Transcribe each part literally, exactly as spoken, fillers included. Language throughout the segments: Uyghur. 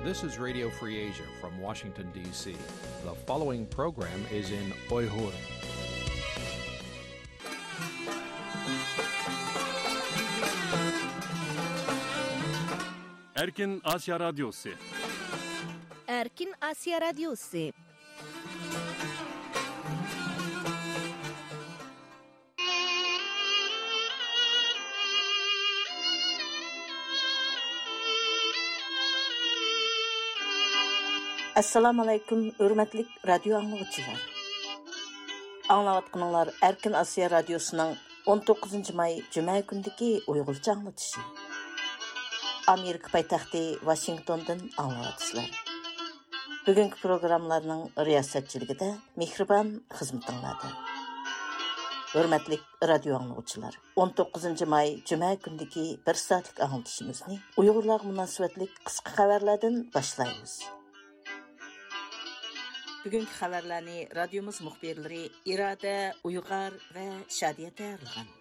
This is Radio Free Asia from Washington, D C. The following program is in Uyghur. Erkin Asya Radyosu. Erkin Asya Radyosu. ئەسسالامۇئەلەيكۇم، ھۆرمەتلىك رادىيو ئاڭلىغۇچىلار. ئاڭلاۋاتقىنىڭلار ئەركىن ئاسىيا رادىيوسىنىڭ ئون توققۇزىنچى ماي جۈمە كۈنىدىكى ئۇيغۇرچە ئاڭلىتىشى. ئامېرىكا پايتەختى ۋاشىنگتوندىن ئاڭلاۋاتىسىلەر. بۈگۈنكى پروگراممىلارنىڭ رىياسەتچىلىكىدە مېھرىبان خىزمىتىڭلاردا. ھۆرمەتلىك رادىيو ئاڭلىغۇچىلار، ئون توققۇزىنچى ماي جۈمە كۈنىدىكى بىر سائەتلىك ئاڭلىتىشىمىزنى ئۇيغۇرلارغا مۇناسىۋەتلىك قىسقا خەۋەرلەردىن باشلايمىز. بۈگۈنكى خەۋەرلەرنى رادىيومىز مۇخبىرلىرى ئىرادە ئۇيغار ۋە شادىيە تەييارلىغان.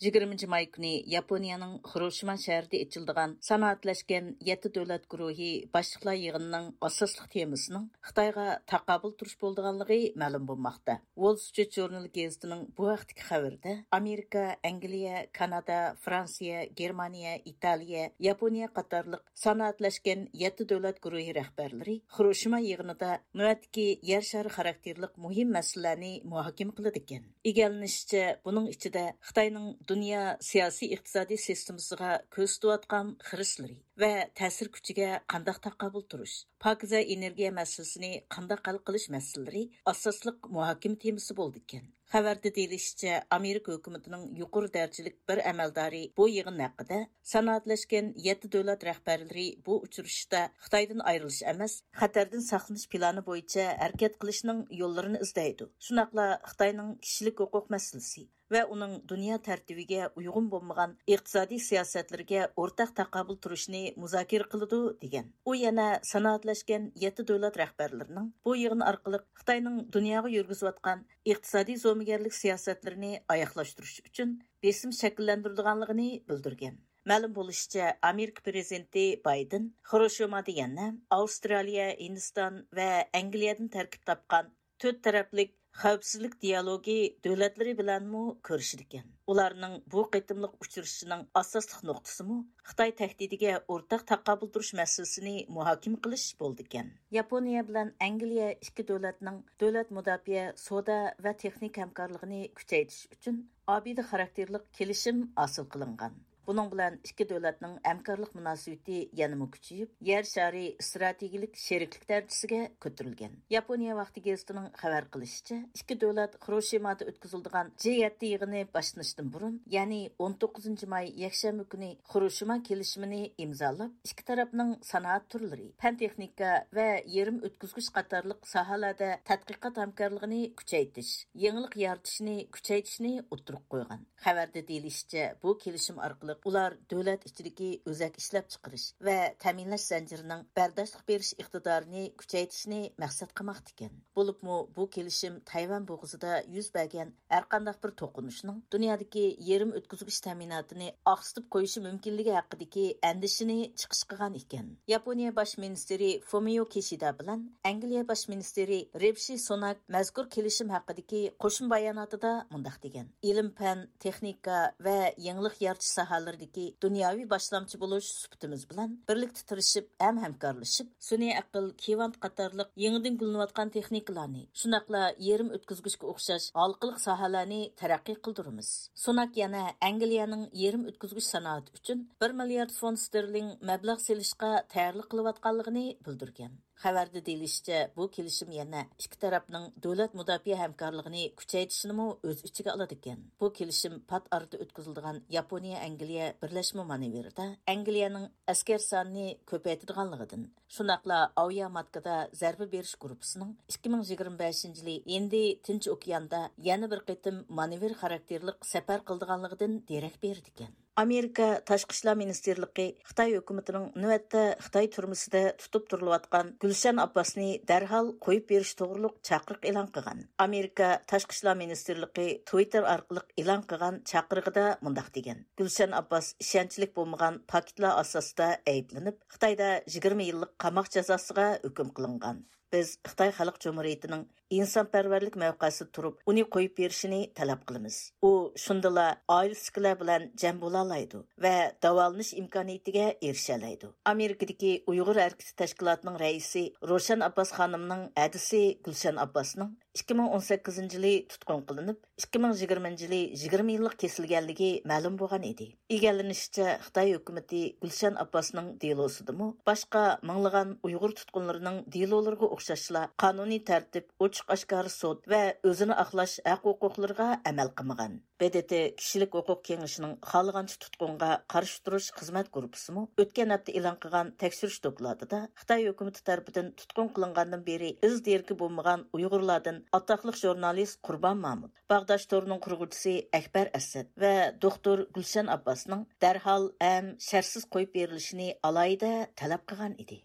يىگىرمىنچى ماي كۈنى ياپونىيەنىڭ خىروشىما شەھىرىدە ئېچىلىدىغان سانائەتلەشكەن يەتتە دۆلەت گۇرۇھى باشلىقلار يىغىنىنىڭ ئاساسلىق تېمىسىنىڭ خىتايغا تاقابىل تۇرۇش بولىدىغانلىقى مەلۇم بولماقتا. ۋول سترىت ژۇرنىلى گېزىتىنىڭ بۇ ھەقتىكى خەۋىرىدە، ئامېرىكا، ئەنگلىيە، كانادا، فرانسىيە، گېرمانىيە، ئىتالىيە، ياپونىيە قاتارلىق سانائەتلەشكەن يەتتە دۆلەت گۇرۇھى رەھبەرلىرى خىروشىما يىغىنىدا نۆۋەتتىكى يەر شارى خاراكتېرلىق مۇھىم مەسىلىلەرنى مۇھاكىمە قىلىدىكەن. ئىگىلىنىشىچە، بۇنىڭ ئىچىدە خىتاينىڭ دۇنيا سىياسىي ئىقتىسادىي سىستېمىسىغا كۆرسىتىۋاتقان خىرىسلىرى ۋە تەسىر كۈچىگە قانداق تاقابىل تۇرۇش، پاكىزە ئېنېرگىيە مەسىلىسىنى قانداق ھەل قىلىش مەسىلىلىرى ئاساسلىق مۇھاكىمە تېمىسى بولىدىكەن. خەۋەردە دېيىلىشىچە، ئامېرىكا ھۆكۈمىتىنىڭ يۇقىرى دەرىجىلىك بىر ئەمەلدارى بۇ يىغىن ھەققىدە، سانائەتلەشكەن يەتتە دۆلەت رەھبەرلىرى بۇ ئۇچرىشىشتا خىتايدىن ئايرىلىش ئەمەس، خەتەردىن ساقلىنىش پىلانى بويىچە ھەرىكەت قىلىشنىڭ يوللىرىنى ئىزدەيدۇ. شۇنداقلا خىتاينىڭ كىشىلىك ھوقۇق مەسىلىسى ۋە ئۇنىڭ دۇنيا تەرتىپىگە ئۇيغۇن بولمىغان ئىقتىسادىي سىياسەتلىرىگە ئورتاق تاقابىل تۇرۇشنى مۇزاكىرە قىلىدۇ، دېگەن. ئۇ يەنە سانائەتلەشكەن يەتتە دۆلەت رەھبەرلىرىنىڭ بۇ يىغىن ئارقىلىق خىتاينىڭ دۇنياغا يۈرگۈزۈۋاتقان ئىقتىسادىي زومىگەرلىك سىياسەتلىرىنى ئاياغلاشتۇرۇش ئۈچۈن بېسىم شەكىللەندۈرىدىغانلىقىنى بىلدۈرگەن. مەلۇم بولۇشىچە، ئامېرىكا پىرېزىدېنتى بايدېن خىروشىمادا يەنە ئاۋسترالىيە، ھىندىستان ۋە ئەنگلىيەدىن تەركىب تاپقان تۆت تەرەپلىك خەۋپسىزلىك دىيالوگى دۆلەتلىرى بىلەنمۇ كۆرۈشىدىكەن. ئۇلارنىڭ بۇ قېتىملىق ئۇچرىشىشىنىڭ ئاساسلىق نۇقتىسىمۇ خىتاي تەھدىتىگە ئورتاق تاقابىل تۇرۇش مەسىلىسىنى مۇھاكىمە قىلىش بولىدىكەن. ياپونىيە بىلەن ئەنگلىيە ئىككى دۆلەتنىڭ دۆلەت مۇداپىئە، سودا ۋە تېخنىكا ھەمكارلىقىنى كۈچەيتىش ئۈچۈن ئابىدە خاراكتېرلىق كېلىشىم ھاسىل قىلىنغان. بۇنىڭ بىلەن ئىككى دۆلەتنىڭ ھەمكارلىق مۇناسىۋىتى يەنىمۇ كۈچىيىپ، يەر شارى ئىستراتېگىيەلىك شېرىكلىك دەرىجىسىگە كۆتۈرۈلگەن. ياپونىيە ۋاقتى گېزىتىنىڭ خەۋەر قىلىشىچە، ئىككى دۆلەت خىروشىمادا ئۆتكۈزۈلىدىغان جى يەتتە يىغىنى باشلىنىشتىن بۇرۇن، يەنى ئون توققۇزىنچى ماي يەكشەنبە كۈنى خىروشىما كېلىشىمىنى ئىمزالاپ، ئىككى تەرەپنىڭ سانائەت تۈرلىرى، پەن تېخنىكا ۋە يېرىم ئۆتكۈزگۈچ قاتارلىق ساھەلەردە تەتقىقات ھەمكارلىقىنى كۈچەيتىش، يېڭىلىق يارىتىشنى كۈچەيتىشنى ئوتتۇرىغا قويغان. خەۋەردە دېيىلىشىچە، بۇ كېلىشىم ئارقىلىق ئۇلار دۆلەت ئىچىدىكى ئۆزەك ئىشلەپچىقىرىش ۋە تەمىنلەش زەنجىرىنىڭ بەرداشلىق بېرىش ئىقتىدارىنى كۈچەيتىشنى مەقسەت قىلماقتىكەن. بولۇپمۇ بۇ كېلىشىم تەيۋەن بوغۇزىدا يۈز بەرگەن ھەرقانداق بىر توقۇنۇشنىڭ دۇنيادىكى يېرىم ئۆتكۈزگۈچ تەمىناتىنى ئاقسىتىپ قويۇشى مۇمكىنلىكى ھەققىدىكى ئەندىشىنى چىقىش قىلغان ئىكەن. ياپونىيە باش مىنىستىرى فۇمىيو كىشىدا بىلەن ئەنگلىيە باش مىنىستىرى رىشى سۇناك مەزكۇر كېلىشىم ھەققىدىكى قوشما باياناتىدا مۇنداق دېگەن: ئىلىم-پەن، تېخنىكا ۋە يېڭىلىق يارىتىش ساھەلىرىدىكى دۇنياۋى باشلامچى بولۇش سۈپىتىمىز بىلەن بىرلىكتە تىرىشىپ ھەم ھەمكارلىشىپ، سۈنئىي ئەقىل، كۋانت قاتارلىق يېڭىدىن گۈللىنىۋاتقان تېخنىكىلارنى، شۇنداقلا يېرىم ئۆتكۈزگۈچكە ئوخشاش ھالقىلىق ساھەلەرنى تەرەققىي قىلدۇرىمىز. سۇناك يەنە ئەنگلىيەنىڭ يېرىم ئۆتكۈزگۈچ سانائىتى ئۈچۈن بىر مىليارد فونت ستېرلىڭ مەبلەغ سېلىشقا تەييارلىق قىلىۋاتقانلىقىنى بىلدۈرگەن. خەۋەردە دېيىلىشىچە، بۇ كېلىشىم يەنە ئىككى تەرەپنىڭ دۆلەت مۇداپىئە ھەمكارلىقىنى كۈچەيتىشنىمۇ ئۆز ئىچىگە ئالىدىكەن. بۇ كېلىشىم پات ئارىدا ئۆتكۈزۈلىدىغان ياپونىيە ئەنگلىيە بىرلەشمە مانېۋىرىدا ئەنگلىيەنىڭ ئەسكەر سانىنى كۆپەيتىدىغانلىقىدىن، شۇنداقلا ئاۋىياماتكىدا زەربە بېرىش گۇرۇپپىسىنىڭ ئىككى مىڭ يىگىرمە بەشىنچى يىلى ھىندى تىنچ ئوكياندا يەنە بىر قېتىم مانېۋىر خاراكتېرلىق سەپەر قىلىدىغانلىقىدىن دېرەك بېرىدىكەن. ئامېرىكا تاشقى ئىشلار مىنىستىرلىقى خىتاي ھۆكۈمىتىنىڭ نۆۋەتتە خىتاي تۈرمىسىدە تۇتۇپ تۇرۇلۇۋاتقان گۈلشەن ئابباسنى دەرھال قويۇپ بېرىش توغرۇلۇق چاقىرىق ئېلان قىلغان. ئامېرىكا تاشقى ئىشلار مىنىستىرلىقى تۋىتتېر ئارقىلىق ئېلان قىلغان چاقىرىقىدا مۇنداق دېگەن: گۈلشەن ئابباس ئىشەنچلىك بولمىغان پاكىتلار ئاساسىدا ئەيىبلىنىپ، خىتايدا يىگىرمە يىللىق قاماق جازاسىغا ھۆكۈم قىلىنغان. بىز خىتاي خەلق جۇمھۇرىيىتىنىڭ ئىنسانپەرۋەرلىك مەۋقەسىدە تۇرۇپ، ئۇنى قويۇپ بېرىشىنى تەلەپ قىلىمىز. ئۇ شۇندىلا ئائىلىسىدىكىلەر بىلەن جەم بولالايدۇ ۋە داۋالىنىش ئىمكانىيىتىگە ئېرىشەلەيدۇ. ئامېرىكىدىكى ئۇيغۇر ھەرىكىتى تەشكىلاتىنىڭ رەئىسى روشەن ئابباس خانىمنىڭ ھەدىسى گۈلشەن ئابباسنىڭ ئىككى مىڭ ئون سەككىزىنچى يىلى تۇتقۇن قىلىنىپ، ئىككى مىڭ يىگىرمىنچى يىلى يىگىرمە يىللىق كېسىلگەنلىكى مەلۇم بولغان ئىدى. ئىگىلىنىشىچە، خىتاي ھۆكۈمىتى گۈلشەن ئابباسنىڭ دېلوسىدىمۇ باشقا مىڭلىغان ئۇيغۇر تۇتقۇنلىرىنىڭ دېلولىرىغا ئوخشاشلا قانۇنىي تەرتىپ، ئوچۇق-ئاشكارا سوت ۋە ئۆزىنى ئاقلاش ھەق-ھوقۇقلىرىغا ئەمەل قىلمىغان. ب د ت كىشىلىك ھوقۇق كېڭىشىنىڭ خالىغانچە تۇتقۇنغا قارشى تۇرۇش خىزمەت گۇرۇپپىسىمۇ ئۆتكەن ھەپتە ئېلان قىلغان تەكشۈرۈش دوكلاتىدا خىتاي ھۆكۈمىتى تەرىپىدىن تۇتقۇن قىلىنغاندىن بېرى ئىز دېرىكى بولمىغان ئۇيغۇرلاردىن ئاتاقلىق ژۇرنالىست قۇربان مامۇت، باغداش تورىنىڭ قۇرغۇچىسى ئەكبەر ئەسەت ۋە دوختۇر گۈلشەن ئابباسنىڭ دەرھال ھەم شەرتسىز قويۇپ بېرىلىشىنى ئالاھىدە تەلەپ قىلغان ئىدى.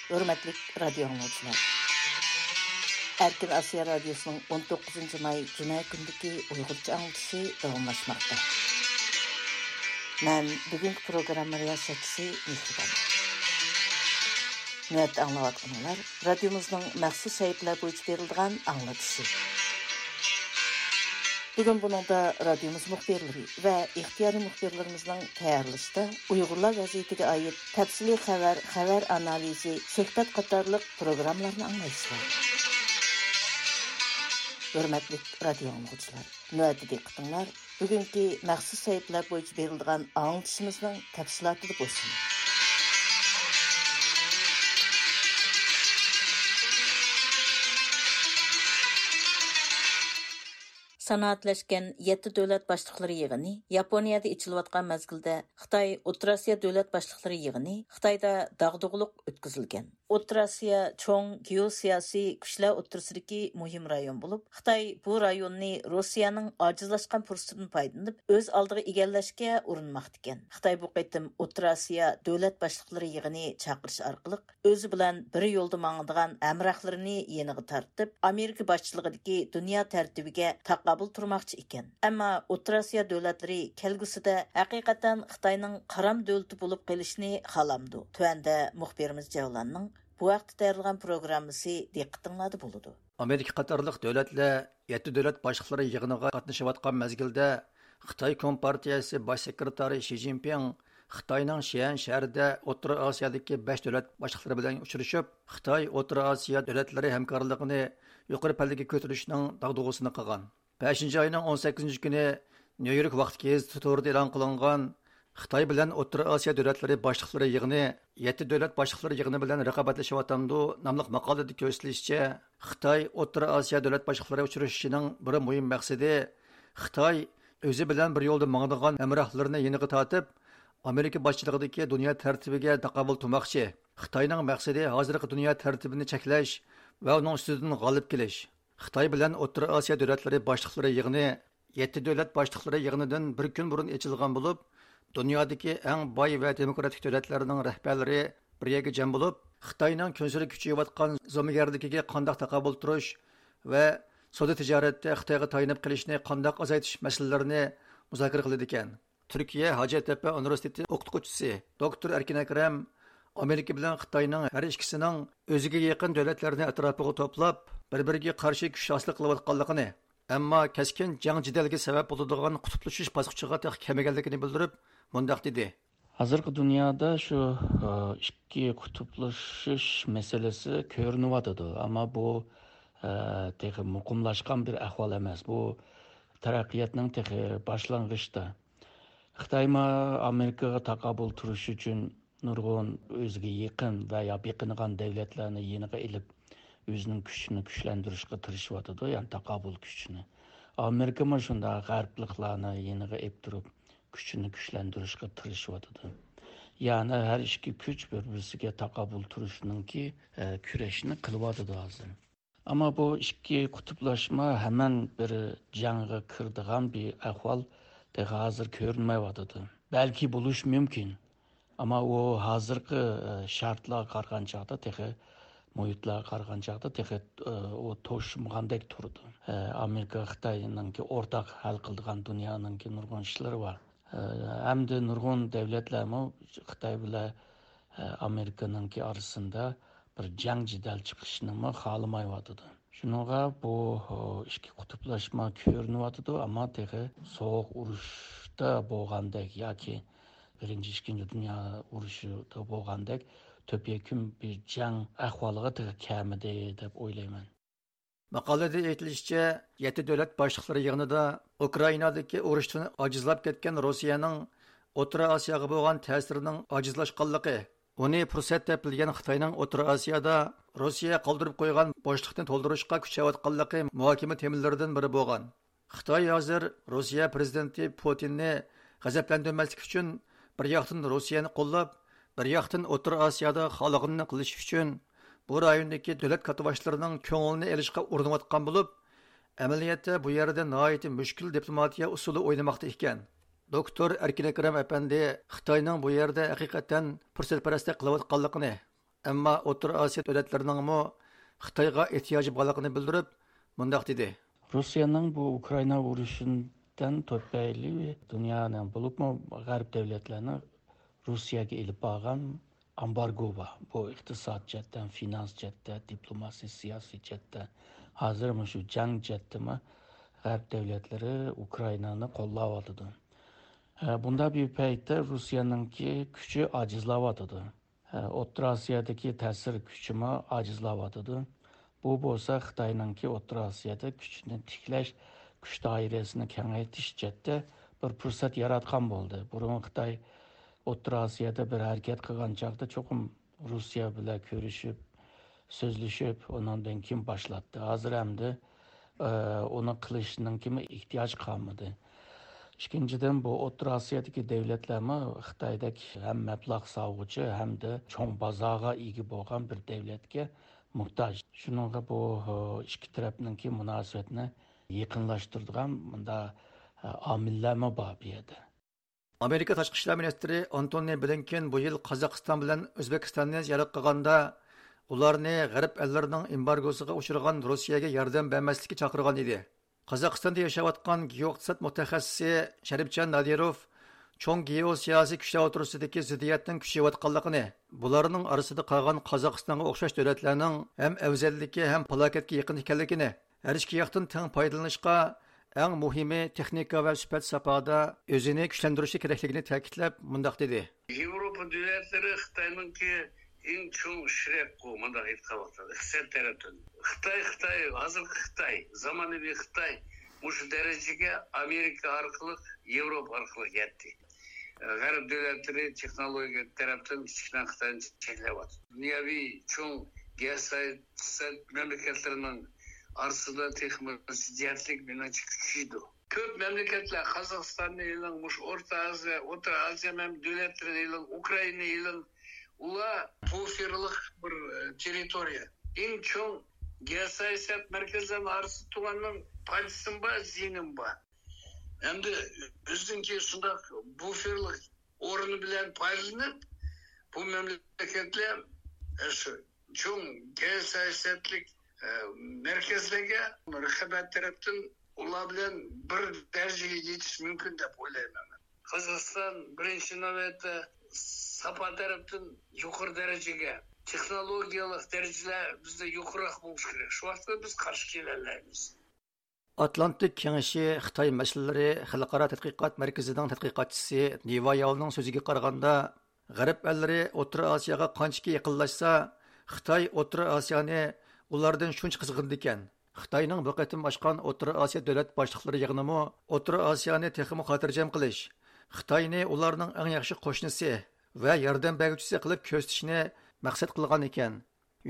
ھۆرمەتلىك رادىيو ئاڭلىغۇچىلار! ئەركىن ئاسىيا رادىيوسىنىڭ ئون توققۇزىنچى ماي جۈمە كۈنىدىكى ئۇيغۇرچە ئاڭلىتىشى داۋاملاشماقتا. مەن بۈگۈنكى پروگرامما رىياسەتچىسى مېھرىبان. نۆۋەتتە ئاڭلاۋاتقىنىڭلار رادىيومىزنىڭ مەخسۇس سەھىپىلەر بويىچە بېرىلىدىغان ئاڭلىتىشى. بۈگۈن بۇنىڭدا رادىيومىز مۇخبىرلىرى ۋە ئىختىيارىي مۇخبىرلىرىمىزنىڭ تەييارلىشىدا ئۇيغۇرلار ۋەزىيىتىگە ئائىت تەپسىلىي خەۋەر، خەۋەر ئانالىزى، سۆھبەت قاتارلىق پروگراممىلارنى ئاڭلايسىلەر. ھۆرمەتلىك رادىيو ئاڭلىغۇچىلار، نۆۋەتتە دىققىتىڭلار بۈگۈنكى مەخسۇس سەھىپىلەر بويىچە بېرىلىدىغان ئاڭلىتىشىمىزنىڭ تەپسىلاتىدا بولسۇن. سانائەتلەشكەن يەتتە دۆلەت باشلىقلىرى يىغىنى ياپونىيەدە ئېچىلىۋاتقان مەزگىلدە، خىتاي ئوتتۇرا ئاسىيا دۆلەت باشلىقلىرى يىغىنى خىتايدا داغدۇغىلىق ئۆتكۈزۈلگەن. ئوتتۇرا ئاسىيا چوڭ گېئوسىياسىي كۈچلەر ئوتتۇرىسىدىكى مۇھىم رايون بولۇپ، خىتاي بۇ رايوننى روسىيەنىڭ ئاجىزلاشقان پۇرسىتىدىن پايدىلىنىپ، ئۆز ئالدىغا ئىگىلەشكە ئۇرۇنماقتىكەن. خىتاي بۇ قېتىم ئوتتۇرا ئاسىيا دۆلەت باشلىقلىرى يىغىنى چاقىرىش ئارقىلىق، ئۆزى بىلەن بىر يولدا ماڭىدىغان ھەمراھلىرىنى يېنىغا تارتىپ، ئامېرىكا باشچىلىقىدىكى دۇنيا تەرتىپىگە تاقابىل تۇرماقچى ئىكەن. ئەمما ئوتتۇرا ئاسىيا دۆلەتلىرى كەلگۈسىدە ھەقىقەتەن خىتاينىڭ قارام دۆلىتى بولۇپ قېلىشىنى خالامدۇ؟ تۆۋەندە مۇخبىرىمىز جەۋلاننىڭ بۇ ھەقتە تەييارلىغان پروگراممىسى دىققىتىڭلاردا بولىدۇ. ئامېرىكا قاتارلىق دۆلەتلەر يەتتە دۆلەت باشلىقلىرى يىغىنىغا قاتنىشىۋاتقان مەزگىلدە، خىتاي كومپارتىيەسى باش سېكرېتارى شى جىنپىڭ خىتاينىڭ شيەن شەھىرىدە ئوتتۇرا ئاسىيادىكى بەش دۆلەت باشلىقلىرى بىلەن ئۇچرىشىپ، خىتاي ئوتتۇرا ئاسىيا دۆلەتلىرى ھەمكارلىقىنى يۇقىرى پەللىگە كۆتۈرۈشنىڭ داغدۇغىسىنى قىلغان. بەشىنچى ئاينىڭ ئون سەككىزىنچى كۈنى نيۇ يورك ۋاقتى گېزىتى تورىدا ئېلان قىلىنغان خىتاي بىلەن ئوتتۇرا ئاسىيا دۆلەتلىرى باشلىقلىرى يىغىنى يەتتە دۆلەت باشلىقلىرى يىغىنى بىلەن رىقابەتلىشىۋاتامدۇ ناملىق ماقالىدە كۆرسىتىلىشىچە، خىتاي ئوتتۇرا ئاسىيا دۆلەت باشلىقلىرى ئۇچرىشىشىنىڭ بىر مۇھىم مەقسىتى خىتاي ئۆزى بىلەن بىر يولدا ماڭىدىغان ھەمراھلىرىنى يېنىغا تارتىپ، ئامېرىكا باشچىلىقىدىكى دۇنيا تەرتىپىگە تاقابىل تۇرماقچى. خىتاينىڭ مەقسىتى ھازىرقى دۇنيا تەرتىپىنى چەكلەش ۋە ئۇنىڭ ئۈستىدىن غالىب كېلىش. خىتاي بىلەن ئوتتۇرا ئاسىيا دۆلەتلىرى باشلىقلىرى يىغىنى يەتتە دۆلەت باشلىقلىرى يىغىنىدىن بىر كۈن بۇرۇن ئېچىلغان بولۇپ، دۇنيادىكى ئەڭ باي ۋە دېموكراتىك دۆلەتلەرنىڭ رەھبەرلىرى بىر يەرگە جەم بولۇپ، خىتاينىڭ كۈنسېرى كۈچىيىۋاتقان زومىگەرلىكىگە قانداق تاقابىل تۇرۇش ۋە سودا تىجارەتتە خىتايغا تايىنىپ قېلىشنى قانداق ئازايتىش مەسىلىلىرىنى مۇزاكىرە قىلىدىكەن. تۈركىيە ھاجەتتەپە ئۇنىۋېرسىتېتى ئوقۇتقۇچىسى دوكتور ئەركىن ئەكرەم ئامېرىكا بىلەن خىتاينىڭ ھەر ئىككىسىنىڭ ئۆزىگە يېقىن دۆلەتلەرنى ئەتراپىغا توپلاپ، بىر-بىرىگە قارشى كۈچ ھاسىل قىلىۋاتقانلىقىنى، ئەمما كەسكىن جەڭ-جېدەلگە سەۋەب بولىدىغان قۇتۇپلىشىش باسقۇچىغا تېخى كەلمىگەنلىكىنى بىلدۈرۈپ، مۇنداق دېدى. ھازىرقى دۇنيادا شۇ، ئى، ئىككى قۇتۇپلىشىش مەسىلىسى كۆرۈنۈۋاتىدۇ. ئەمما بۇ، ئى، تېخى مۇقىملاشقان بىر ئەھۋال ئەمەس. بۇ تەرەققىياتنىڭ تېخى باشلانغۇچىدا. خىتايمۇ ئامېرىكىغا تاقابىل تۇرۇش ئۈچۈن نۇرغۇن ئۆزىگە يېقىن ۋە يا بېقىنغان دۆلەتلەرنى يېنىغا ئېلىپ، ئۆزىنىڭ كۈچىنى كۈچلەندۈرۈشكە تىرىشىۋاتىدۇ، يەنى تاقابىل كۈچىنى. ئامېرىكىمۇ شۇنداق غەربلىكلارنى يېنىغا ئېلىپ تۇرۇپ، كۈچىنى كۈچلەندۈرۈشكە تىرىشىۋاتىدۇ. يەنى ھەر ئىككى كۈچ بىر-بىرسىگە تاقابىل تۇرۇشنىڭكى، ئە، كۈرەشنى قىلىۋاتىدۇ ھازىر. ئەمما بۇ ئىككى قۇتۇپلاشما ھەمان بىر جەڭگە كىرىدىغان بىر ئەھۋال تېخى ھازىر كۆرۈنمەيۋاتىدۇ. بەلكى بولۇشى مۇمكىن. ئەمما ئۇ ھازىرقى، ئە، شارتلارغا قارىغان چاغدا تېخى، مۇھىتلارغا قارىغان چاغدا تېخى، ئە، ئۇ توشمىغاندەك تۇرىدۇ. ئە، ئامېرىكا خىتاينىڭكى ئورتاق ھەل قىلىدىغان دۇنيانىڭكى نۇرغۇن ئىشلىرى بار. ئە، ھەمدە نۇرغۇن دەۋلەتلەرمۇ خىتاي بىلەن، ئە، ئامېرىكىنىڭكى ئارىسىدا بىر جەڭ جېدەل چىقىشنىمۇ خالىمايۋاتىدۇ. شۇنىڭغا بۇ، ئە، ئىككى قۇتۇپلاشما كۆرۈنۈۋاتىدۇ، ئەمما تېخى سوغۇق ئۇرۇشتا بولغاندەك ياكى بىرىنچى، ئىككىنچى دۇنيا ئۇرۇشىدا بولغاندەك تۆپيەكۈن بىر جەڭ ئەھۋالىغا تېخى كەلمىدى دەپ ئويلايمەن. ماقالىدە ئېيتىلىشىچە، يەتتە دۆلەت باشلىقلىرى يىغىنىدا ئۇكرائىنادىكى ئۇرۇشتىن ئاجىزلاپ كەتكەن روسىيەنىڭ ئوتتۇرا ئاسىياغا بولغان تەسىرىنىڭ ئاجىزلاشقانلىقى، ئۇنى پۇرسەت دەپ بىلگەن خىتاينىڭ ئوتتۇرا ئاسىيادا روسىيە قالدۇرۇپ قويغان بوشلۇقنى تولدۇرۇشقا كۈچ ئەۋەتقانلىقى مۇھاكىمە تېمىلىرىدىن بىرى بولغان. خىتاي ھازىر روسىيە پىرېزىدېنتى پۇتىننى غەزەپلەندۈرمەسلىك ئۈچۈن، بىر ياقتىن روسىيەنى قوللاپ، بىر ياقتىن ئوتتۇرا ئاسىيادا خالىغىنىنى قىلىش ئۈچۈن، بۇ رايوندىكى دۆلەت كاتتىباشلىرىنىڭ كۆڭلىنى ئېلىشقا ئۇرۇنۇۋاتقان بولۇپ، ئەمەلىيەتتە بۇ يەردە ناھايىتى مۈشكۈل دىپلوماتىيە ئۇسۇلى ئوينىماقتا ئىكەن. دوكتور ئەركىن ئەكرەم ئەپەندى خىتاينىڭ بۇ يەردە ھەقىقەتەن پۇرسەتپەرەسلىك قىلىۋاتقانلىقىنى، ئەمما ئوتتۇرا ئاسىيا دۆلەتلىرىنىڭمۇ خىتايغا ئېھتىياجى بارلىقىنى بىلدۈرۈپ، مۇنداق دېدى. روسىيەنىڭ بۇ ئۇكرائىنا ئۇرۇشىدىن تۈپەيلى دۇنيانىڭ، بولۇپمۇ غەرب دۆلەتلەرنىڭ روسىيەگە ئېلىپ بارغان ئامبارگو بار. بۇ ئىقتىساد جەھەتتىن، فىنانس جەھەتتە، دىپلوماسىيە، سىياسىي جەھەتتە، ھازىر مۇشۇ جەڭ جەھەتتىمۇ غەرب دۆلەتلىرى ئۇكرائىنانى قوللاۋاتىدۇ. ئە، بۇنداق بىر پەيتتە روسىيەنىڭكى كۈچى ئاجىزلاۋاتىدۇ. ئوتتۇرا ئاسىيادىكى تەسىر كۈچىمۇ ئاجىزلاۋاتىدۇ. بۇ بولسا خىتاينىڭكى ئوتتۇرا ئاسىيادا كۈچىنى تىكلەش، كۈچ دائىرىسىنى كېڭەيتىش جەھەتتە بىر پۇرسەت ياراتقان بولدى. بۇرۇن خىتاي ئوتتۇرا ئاسىيادا بىر ھەرىكەت قىلغان چاغدا چوقۇم روسىيە بىلەن كۆرۈشۈپ، سۆزلىشىپ، ئۇنىڭدىن كېيىن باشلاتتى. ھازىر ئەمدى ئۇنى قىلىشنىڭكىمۇ ئېھتىياج قالمىدى. ئىككىنچىدىن، بۇ ئوتتۇرا ئاسىيادىكى دۆلەتلەرمۇ خىتايدەك ھەم مەبلەغ سالغۇچى، ھەمدە چوڭ بازارغا ئىگە بولغان بىر دۆلەتكە موھتاج. شۇنىڭغا بۇ ئىككى تەرەپنىڭكى مۇناسىۋەتنى يېقىنلاشتۇرىدىغان مۇنداق ئامىللەرمۇ بار بۇ يەردە. ئامېرىكا تاشقى ئىشلار مىنىستىرى ئانتونى بلىنكېن بۇ يىل قازاقىستان بىلەن ئۆزبېكىستاننى زىيارەت قىلغاندا، ئۇلارنى غەرب ئەللىرىنىڭ ئېمبارگوسىغا ئۇچرىغان روسىيەگە ياردەم بەرمەسلىككە چاقىرغان ئىدى. قازاقىستاندا ياشاۋاتقان گېئوئىقتىساد مۇتەخەسسىسى شەرىپجان نادىروف چوڭ گېئوسىياسىي كۈچلەر ئوتتۇرىسىدىكى زىددىيەتنىڭ كۈچىيىۋاتقانلىقىنى، بۇلارنىڭ ئارىسىدا قالغان قازاقىستانغا ئوخشاش دۆلەتلەرنىڭ ھەم ئەۋزەللىكى، ھەم پالاكەتكە يېقىن ئىكەنلىكىنى، ھەر ئىككى ياقتىن تەڭ پايدىلىنىشقا ئەڭ مۇھىمى تېخنىكا ۋە سۈپەت ساپادا ئۆزىنى كۈچلەندۈرۈشى كېرەكلىكىنى تەكىتلەپ، مۇنداق دېدى. ياۋروپا دۆلەتلىرى خىتاينىڭكى ئەڭ چوڭ شېرىكى، مۇنداق ئېيتقان ۋاقتىدا، ئىقتىساد تەرەپتىن. خىتاي، خىتاي، ھازىرقى خىتاي، زامانىۋى خىتاي مۇشۇ دەرىجىگە ئامېرىكا ئارقىلىق، ياۋروپا ئارقىلىق يەتتى. غەرب دۆلەتلىرى تېخنولوگىيە تەرەپتىن كىچىككىنە خىتاينى چەكلەۋاتىدۇ. دۇنياۋى چوڭ گېئوسىياسەت مەملىكەتلىرىنىڭ ئارىسىدا تېخىمۇ زىددىيەتلىك، مېنىڭچە، كۈچىيىدۇ. كۆپ مەملىكەتلەر، قازاقىستاننى ئېلىڭ، مۇشۇ ئورتا ئازىيا، ئوتتۇرا ئازىيا مەم-، دۆلەتلىرىنى ئېلىڭ، ئۇكرائىنانى ئېلىڭ، ئۇلار بۇفېرلىق بىر، ئە، تېررىتورىيە. ئەڭ چوڭ گېئوسىياسەت مەركەزلىرىنىڭ ئارىسىدا تۇرغاننىڭ پايدىسىمۇ بار، زىيىنىمۇ بار. ئەمدى ئۆزىنىڭكى شۇنداق بۇفېرلىق ئورنى بىلەن پايدىلىنىپ، بۇ مەملىكەتلەر، ئە، شۇ چوڭ گېئوسىياسەتلىك، ئە، مەركەزلەرگە رىقابەت تەرەپتىن ئۇلار بىلەن بىر دەرىجىگە يېتىش مۇمكىن دەپ ئويلايمەن مەن. قازاقىستان بىرىنچى نۆۋەتتە ساپا تەرەپتىن يۇقىرى دەرىجىگە، تېخنولوگىيەلىك دەرىجىلەر بىزدە يۇقىرىراق بولۇشى كېرەك. شۇ ۋاقىتتا بىز قارشى كېلەلەيمىز. ئاتلانتىك كېڭىشى خىتاي مەسىلىلىرى خەلقئارا تەتقىقات مەركىزىنىڭ تەتقىقاتچىسى نىۋا ياۋنىڭ سۆزىگە قارىغاندا، غەرب ئەللىرى ئوتتۇرا ئاسىياغا قانچىكى يېقىنلاشسا، خىتاي ئوتتۇرا ئاسىيانى ئۇلاردىن شۇنچە قىزغىنىدىكەن. خىتاينىڭ بۇ قېتىم ئاچقان ئوتتۇرا ئاسىيا دۆلەت باشلىقلىرى يىغىنىمۇ ئوتتۇرا ئاسىيانى تېخىمۇ خاتىرجەم قىلىش، خىتاينى ئۇلارنىڭ ئەڭ ياخشى قوشنىسى ۋە ياردەم بەرگۈچىسى قىلىپ كۆرسىتىشنى مەقسەت قىلغان ئىكەن.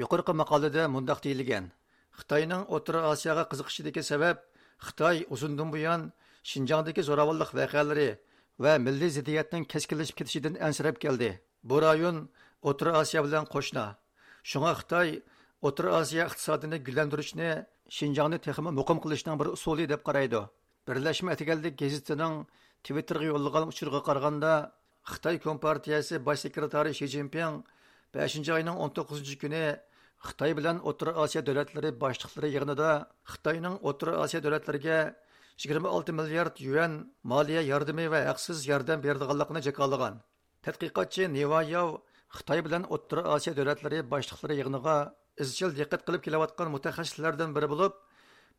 يۇقىرىقى ماقالىدە مۇنداق دېيىلگەن: خىتاينىڭ ئوتتۇرا ئاسىياغا قىزىقىشىدىكى سەۋەب، خىتاي ئۇزۇندىن بۇيان شىنجاڭدىكى زوراۋانلىق ۋەقەلىرى ۋە مىللىي زىددىيەتنىڭ كەسكىنلىشىپ كېتىشىدىن ئەنسىرەپ كەلدى. بۇ رايون ئوتتۇرا ئاسىيا بىلەن قوشنا. شۇڭا خىتاي ئوتتۇرا ئاسىيا ئىقتىسادىنى گۈللەندۈرۈشنى شىنجاڭنى تېخىمۇ مۇقىم قىلىشنىڭ بىر ئۇسۇلى دەپ قارايدۇ. بىرلەشمە ئەتىگەنلىك گېزىتىنىڭ تىۋىتتېرغا يوللىغان ئۇچۇرىغا قارىغاندا، خىتاي كومپارتىيەسى باش سېكرېتارى شى جىنپىڭ بەشىنچى ئاينىڭ ئون توققۇزىنچى كۈنى خىتاي بىلەن ئوتتۇرا ئاسىيا دۆلەتلىرى باشلىقلىرى يىغىنىدا خىتاينىڭ ئوتتۇرا ئاسىيا دۆلەتلىرىگە يىگىرمە ئالتە مىليارد يۈەن مالىيە ياردىمى ۋە ھەقسىز ياردەم بېرىدىغانلىقىنى جاكارلىغان. تەتقىقاتچى نىۋا ياۋ خىتاي بىلەن ئوتتۇرا ئاسىيا دۆلەتلىرى باشلىقلىرى يىغىنىغا ئىزچىل دىققەت قىلىپ كېلىۋاتقان مۇتەخەسسىسلەردىن بىرى بولۇپ،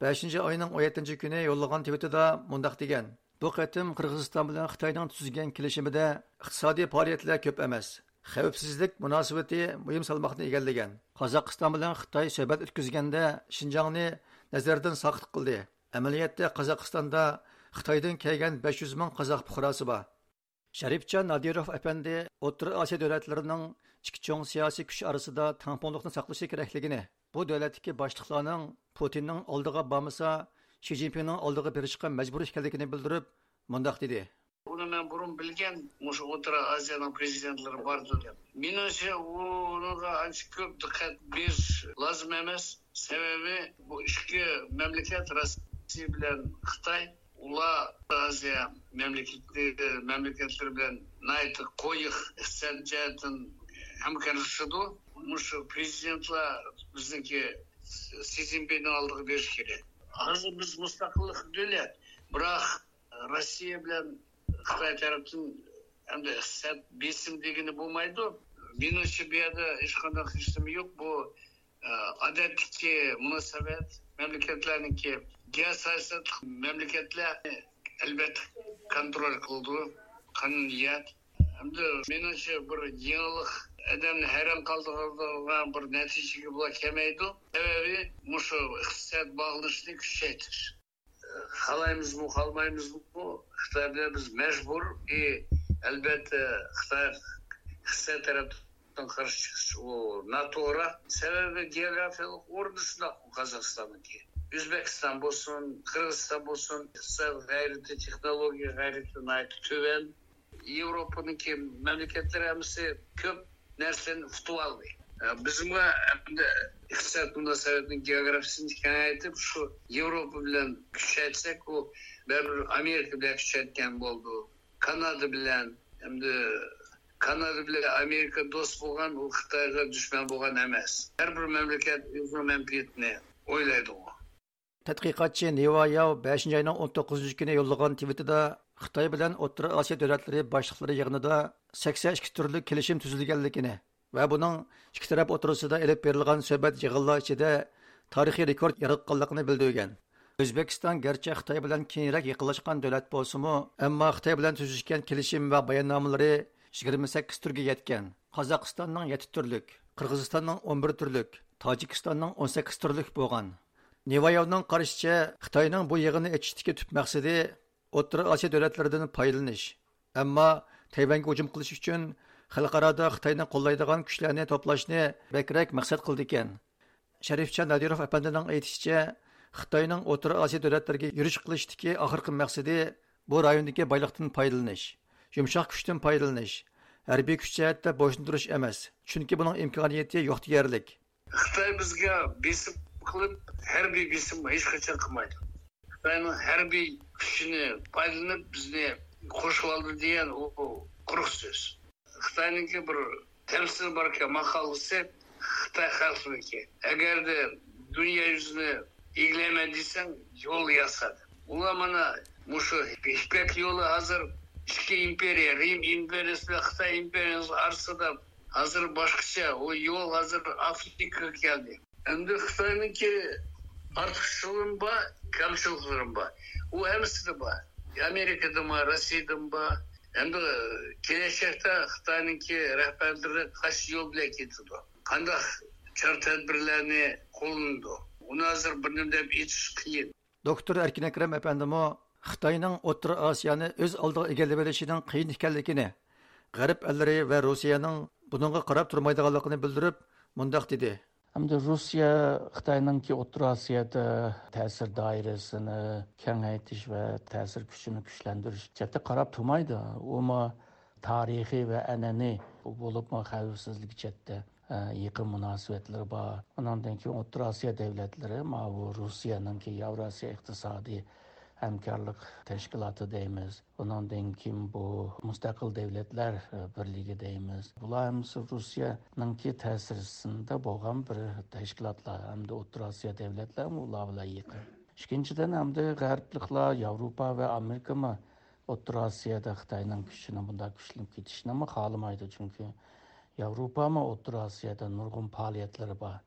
بەشىنچى ئاينىڭ ئون يەتتىنچى كۈنى يوللىغان تىۋىتىدا مۇنداق دېگەن: بۇ قېتىم قىرغىزىستان بىلەن خىتاينىڭ تۈزگەن كېلىشىمىدە ئىقتىسادىي پائالىيەتلەر كۆپ ئەمەس، خەۋپسىزلىك مۇناسىۋىتى مۇھىم سالماقنى ئىگىلىگەن. قازاقىستان بىلەن خىتاي سۆھبەت ئۆتكۈزگەندە شىنجاڭنى نەزەردىن ساقىت قىلدى. ئەمەلىيەتتە قازاقىستاندا خىتايدىن كەلگەن بەش يۈز مىڭ قازاق پۇقراسى بار. شەرىپجان نادىروف ئەپەندى ئوتتۇرا ئاسىيا دۆلەتلىرىنىڭ ئىككى چوڭ سىياسىي كۈچ ئارىسىدا تەڭپۇڭلۇقنى ساقلىشى كېرەكلىكىنى، بۇ دۆلەتتىكى باشلىقلارنىڭ پۇتىننىڭ ئالدىغا بارمىسا، شى جىنپىڭنىڭ ئالدىغا بېرىشقا مەجبۇر ئىكەنلىكىنى بىلدۈرۈپ، مۇنداق دېدى. بۇنى مەن بۇرۇن بىلگەن، مۇشۇ ئوتتۇرا ئازىيانىڭ پرېزىدېنتلىرى باردۇ دەپ. مېنىڭچە، ئۇنىڭغا ئانچە كۆپ دىققەت بېرىش لازىم ئەمەس. سەۋەبى، بۇ ئىككى مەملىكەت، روسىيە بىلەن خىتاي، ئۇلار ئازىيا مەملىكەتلىرى، مەملىكەتلىرى بىلەن ناھايىتى قويۇق ئىقتىساد جەھەتتىن ھەمكارلىشىدۇ. مۇشۇ پرېزىدېنتلار بىزنىڭكى سى جىنپىڭنىڭ ئالدىغا بېرىشى كېرەك. ھازىر بىز مۇستەقىللىق دۆلەت، بىراق روسىيە بىلەن خىتاي تەرەپتىن ئەمدى ئىقتىساد بېسىم دېگىلى بولمايدۇ. مېنىڭچە، بۇ يەردە ھېچقانداق ھېچنېمە يوق. بۇ، ئە، ئادەتتىكى مۇناسىۋەت، مەملىكەتلەرنىڭكى، گېئوسىياسەتلىك مەملىكەتلەر ئەلۋەتتە كونترول قىلىدۇ، قانۇنىيەت. ئەمدى مېنىڭچە، بىر يېڭىلىق ئادەمنى ھەيران قالدۇرىدىغان بىر نەتىجىگە بۇلار كەلمەيدۇ. سەۋەبى مۇشۇ ئىقتىساد باغلىنىشىنى كۈچەيتىش. خالايمىزمۇ، خالىمايمىزمۇ، خىتاي بىلەن بىز مەجبۇر. ئى، ئەلۋەتتە، خىتاي، خىتاي تەرەپتىن قارشى چىقىش ئۇ ناتوغرا. سەۋەبى، گېئوگرافىيەلىك ئورنى شۇنداق قازاقىستاننىڭكى. ئۆزبېكىستان بولسۇن، قىرغىزىستان بولسۇن، ئىقتىساد غەيرىتى، تېخنولوگىيە غەيرىتى ناھايىتى تۆۋەن. ياۋروپانىڭكى مەملىكەتلىرى ھەممىسى كۆپ نەرسىلەرنى ئۇتۇۋالدى. بىزمۇ ئەمدى ئىقتىساد مۇناسىۋەتنىڭ گېئوگرافىيىسىنى كېڭەيتىپ، شۇ ياۋروپا بىلەن كۈچەيتسەك، ئۇ بەرىبىر ئامېرىكا بىلەن كۈچەيتكەن بولدى. كانادا بىلەن، ئەمدى كانادا بىلەن ئامېرىكا دوست بولغان، ئۇ خىتايغا دۈشمەن بولغان ئەمەس. ھەر بىر مەملىكەت ئۆزىنىڭ مەنپەئەتىنى ئويلايدىغۇ. تەتقىقاتچى نىۋا ياۋ بەشىنچى ئاينىڭ ئون توققۇزىنچى كۈنى يوللىغان تىۋىتىدا خىتاي بىلەن ئوتتۇرا ئاسىيا دۆلەتلىرى باشلىقلىرى يىغىنىدا سەكسەن ئىككى تۈرلۈك كېلىشىم تۈزۈلگەنلىكىنى ۋە بۇنىڭ ئىككى تەرەپ ئوتتۇرىسىدا ئېلىپ بېرىلغان سۆھبەت يىغىنلار ئىچىدە تارىخىي رېكورت ياراتقانلىقىنى بىلدۈرگەن. ئۆزبېكىستان گەرچە خىتاي بىلەن كېيىنرەك يېقىنلاشقان دۆلەت بولسىمۇ، ئەمما خىتاي بىلەن تۈزۈشكەن كېلىشىم ۋە باياننامىلىرى يىگىرمە سەككىز تۈرگە يەتكەن. قازاقىستاننىڭ يەتتە تۈرلۈك، قىرغىزىستاننىڭ ئون بىر تۈرلۈك، تاجىكىستاننىڭ ئون سەككىز تۈرلۈك بولغان. نىۋايوۋنىڭ قارىشىچە، خىتاينىڭ بۇ يىغىننى ئېچىشتىكى تۈپ مەقسىتى ئوتتۇرا ئاسىيا دۆلەتلىرىدىن پايدىلىنىش، ئەمما تەيۋەنگە ھۇجۇم قىلىش ئۈچۈن خەلقئارادا خىتاينى قوللايدىغان كۈچلەرنى توپلاشنى بەكرەك مەقسەت قىلىدىكەن. شەرىپجان نادىروف ئەپەندىنىڭ ئېيتىشىچە، خىتاينىڭ ئوتتۇرا ئاسىيا دۆلەتلىرىگە يۈرۈش قىلىشتىكى ئاخىرقى مەقسىتى بۇ رايوندىكى بايلىقتىن پايدىلىنىش، يۇمشاق كۈچتىن پايدىلىنىش، ھەربىي كۈچ جەھەتتە بويسۇندۇرۇش ئەمەس، چۈنكى بۇنىڭ ئىمكانىيىتى يوق دېيەرلىك. خىتاي بىزگە بېسىم قىلىپ، ھەربىي بېسىم ھېچقاچان قىلمايدۇ. خىتاينىڭ ھەربىي كۈچىنى پايدىلىنىپ، بىزنى قورشىۋالدى دېگەن ئۇ قۇرۇق سۆز. خىتاينىڭكى بىر تەمسىلى باركەن، ماقالىسى، خىتاي خەلقىنىڭكى. ئەگەردە دۇنيا يۈزىنى ئىگىلەيمەن دېسەڭ، يول ياسا. ئۇلار مانا مۇشۇ يىپەك يولى ھازىر ئىككى ئىمپېرىيە، رىم ئىمپېرىيىسى بىلەن خىتاي ئىمپېرىيىسى ئارىسىدا ھازىر باشقىچە. ئۇ يول ھازىر ئافرىكىغا كەلدى. ئەمدى خىتاينىڭكى ئارتۇقچىلىقىمۇ بار، كەمچىلىكلىرىمۇ بار. ئۇ ھەممىسىدە بار. ئامېرىكىدىمۇ، روسىيىدىمۇ بار. ئەمدى كېلەچەكتە خىتاينىڭكى رەھبەرلىرى قايسى يول بىلەن كېتىدۇ؟ قانداق چارە تەدبىرلەرنى قوللىنىدۇ؟ ئۇنى ھازىر بىر نېمە دەپ ئېيتىش قىيىن. دوكتور ئەركىن ئەكرەم ئەپەندىمۇ خىتاينىڭ ئوتتۇرا ئاسىيانى ئۆز ئالدىغا ئىگىلىۋېلىشىنىڭ قىيىن ئىكەنلىكىنى، غەرب ئەللىرى ۋە روسىيەنىڭ بۇنىڭغا قاراپ تۇرمايدىغانلىقىنى بىلدۈرۈپ، مۇنداق دېدى. ئەمدى روسىيە خىتاينىڭكى ئوتتۇرا ئاسىيادا تەسىر دائىرىسىنى كېڭەيتىش ۋە تەسىر كۈچىنى كۈچلەندۈرۈش جەھەتتە قاراپ تۇرمايدۇ. ئۇمۇ تارىخىي ۋە ئەنئەنىۋى، بولۇپمۇ خەۋپسىزلىك جەھەتتە، ئە، يېقىن مۇناسىۋەتلىرى بار. ئۇنىڭدىن كېيىن ئوتتۇرا ئاسىيا دۆلەتلىرى، ماۋۇ روسىيەنىڭكى ياۋراسىيا ئىقتىسادىي ھەمكارلىق تەشكىلاتى دەيمىز. ئۇنىڭدىن كېيىن بۇ مۇستەقىل دۆلەتلەر، ئە، بىرلىكى دەيمىز. بۇلار ھەممىسى روسىيەنىڭكى تەسىرىسىندە بولغان بىر تەشكىلاتلار ھەمدە ئوتتۇرا ئاسىيا دۆلەتلەرمۇ ئۇلار بىلەن يېقىن. ئىككىنچىدىن، ئەمدى غەربلىكلار، ياۋروپا ۋە ئامېرىكىمۇ ئوتتۇرا ئاسىيادا خىتاينىڭ كۈچىنى بۇنداق كۈچلىنىپ كېتىشىنىمۇ خالىمايدۇ. چۈنكى ياۋروپامۇ ئوتتۇرا ئاسىيادا نۇرغۇن پائالىيەتلىرى بار.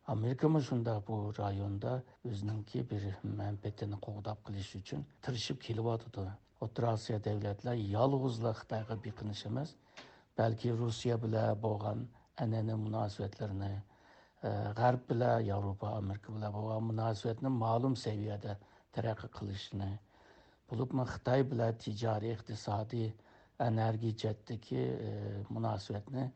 ئامېرىكىمۇ شۇنداق بۇ رايوندا ئۆزىنىڭكى بىر مەنپەئەتىنى قوغداپ قېلىش ئۈچۈن تىرىشىپ كېلىۋاتىدۇ. ئوتتۇرا ئاسىيا دۆلەتلەر يالغۇزلا خىتايغا بېقىنىش ئەمەس، بەلكى روسىيە بىلەن بولغان ئەنئەنىۋى مۇناسىۋەتلىرىنى، ئە، غەرب بىلەن، ياۋروپا، ئامېرىكا بىلەن بولغان مۇناسىۋەتنى مەلۇم سەۋىيەدە تەرەققىي قىلىشىنى، بولۇپمۇ خىتاي بىلەن تىجارىي، ئىقتىسادىي، ئېنېرگىيە جەھەتتىكى، ئە، مۇناسىۋەتنى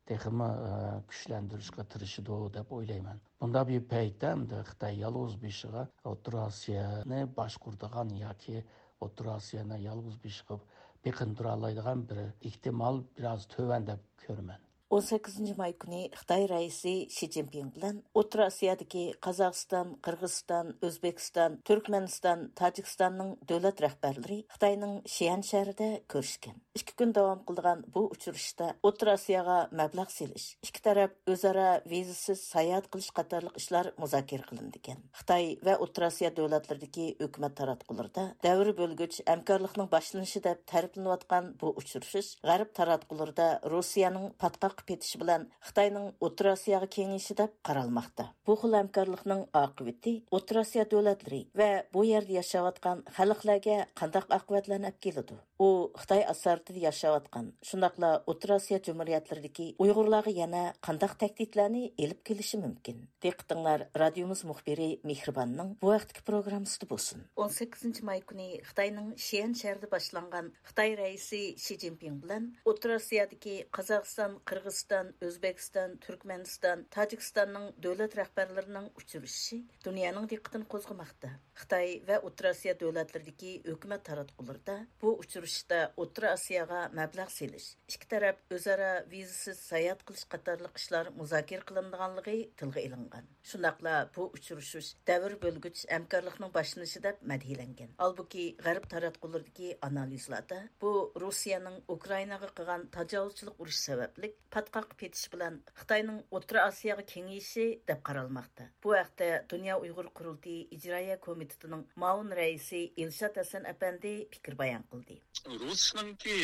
تېخىمۇ، ئە، كۈچلەندۈرۈشكە تىرىشىدۇ دەپ ئويلايمەن. بۇنداق بىر پەيتتە ئەمدى خىتاي يالغۇز بېشىغا ئوتتۇرا ئاسىيانى باشقۇرىدىغان ياكى ئوتتۇرا ئاسىيانى يالغۇز بېشىغا بېقىندۇرالايدىغان بىر ئېھتىمال بىراز تۆۋەن دەپ كۆرىمەن. ئون سەككىزىنچى ماي كۈنى خىتاي رەئىسى شى جىنپىڭ بىلەن ئوتتۇرا ئاسىيادىكى قازاقىستان، قىرغىزىستان، ئۆزبېكىستان، تۈركمەنىستان، تاجىكىستاننىڭ دۆلەت رەھبەرلىرى خىتاينىڭ شيەن شەھىرىدە كۆرۈشكەن. ئىككى كۈن داۋام قىلىدىغان بۇ ئۇچرىشىشتا ئوتتۇرا ئاسىياغا مەبلەغ سېلىش، ئىككى تەرەپ ئۆزئارا ۋىزىسىز ساياھەت قىلىش قاتارلىق ئىشلار مۇزاكىرە قىلىنىدىكەن. خىتاي ۋە ئوتتۇرا ئاسىيا دۆلەتلىرىدىكى ھۆكۈمەت تاراتقۇلىرىدا دەۋر بۆلگۈچ ھەمكارلىقنىڭ باشلىنىشى دەپ تەرىپلىنىۋاتقان بۇ ئۇچرىشىش غەرب تاراتقۇلىرىدا روسىيەنىڭ پاتقاققا پېتىشى بىلەن خىتاينىڭ ئوتتۇرا ئاسىياغا كېڭىيىشى دەپ قارالماقتا. بۇ خىل ھەمكارلىقنىڭ ئاقىۋىتى ئوتتۇرا ئاسىيا دۆلەتلىرى ۋە بۇ يەردە ياشاۋاتقان خەلقلەرگە قانداق ئاقىۋەتلەرنى ئەپ كېلىدۇ؟ ئۇ خىتاي ئاسارىتىدە ياشاۋاتقان، شۇنداقلا ئوتتۇرا ئاسىيا جۇمھۇرىيەتلىرىدىكى ئۇيغۇرلارغا يەنە قانداق تەھدىتلەرنى ئېلىپ كېلىشى مۇمكىن؟ دىققىتىڭلار رادىيومىز مۇخبىرى مېھرىباننىڭ بۇ ھەقتىكى پروگراممىسىدا بولسۇن. ئون سەككىزىنچى ماي كۈنى خىتاينىڭ شيەن شەھىرىدە باشلانغان خىتاي رەئىسى شى جىنپىڭ بىلەن ئوتتۇرا ئاسىيادىكى قازاقىستان، قىرغىزىستان، ئۆزبېكىستان، تۈركمەنىستان، تاجىكىستاننىڭ دۆلەت رەھبەرلىرىنىڭ ئۇچرىشىشى دۇنيانىڭ دىققىتىنى قوزغىماقتا. خىتاي ۋە ئوتتۇرا ئاسىيا دۆلەتلىرىدىكى ھۆكۈمەت تاراتقۇلىرىدا بۇ ئۇچرىشىشتا ئوتتۇرا ئاسىياغا مەبلەغ سېلىش، ئىككى تەرەپ ئۆزئارا ۋىزىسىز ساياھەت قىلىش قاتارلىق ئىشلار مۇزاكىرە قىلىنىدىغانلىقى تىلغا ئېلىنغان. شۇنداقلا بۇ ئۇچرىشىش دەۋر بۆلگۈچ ھەمكارلىقنىڭ باشلىنىشى دەپ مەدھىيەلەنگەن. ھالبۇكى، غەرب تاراتقۇلىرىدىكى ئانالىزلاردا بۇ روسىيەنىڭ ئۇكرائىناغا قىلغان تاجاۋۇزچىلىق ئۇرۇشى سەۋەبلىك پاتقاققا پېتىشى بىلەن خىتاينىڭ ئوتتۇرا ئاسىياغا كېڭىيىشى دەپ قارالماقتا. بۇ ھەقتە دۇنيا ئۇيغۇر قۇرۇلتىيى ئىجرائىيە كومىتېتىنىڭ مۇئاۋىن رەئىسى ئىلشات ھەسەن ئەپەندى پىكىر بايان قىلدى. رۇسنىڭكى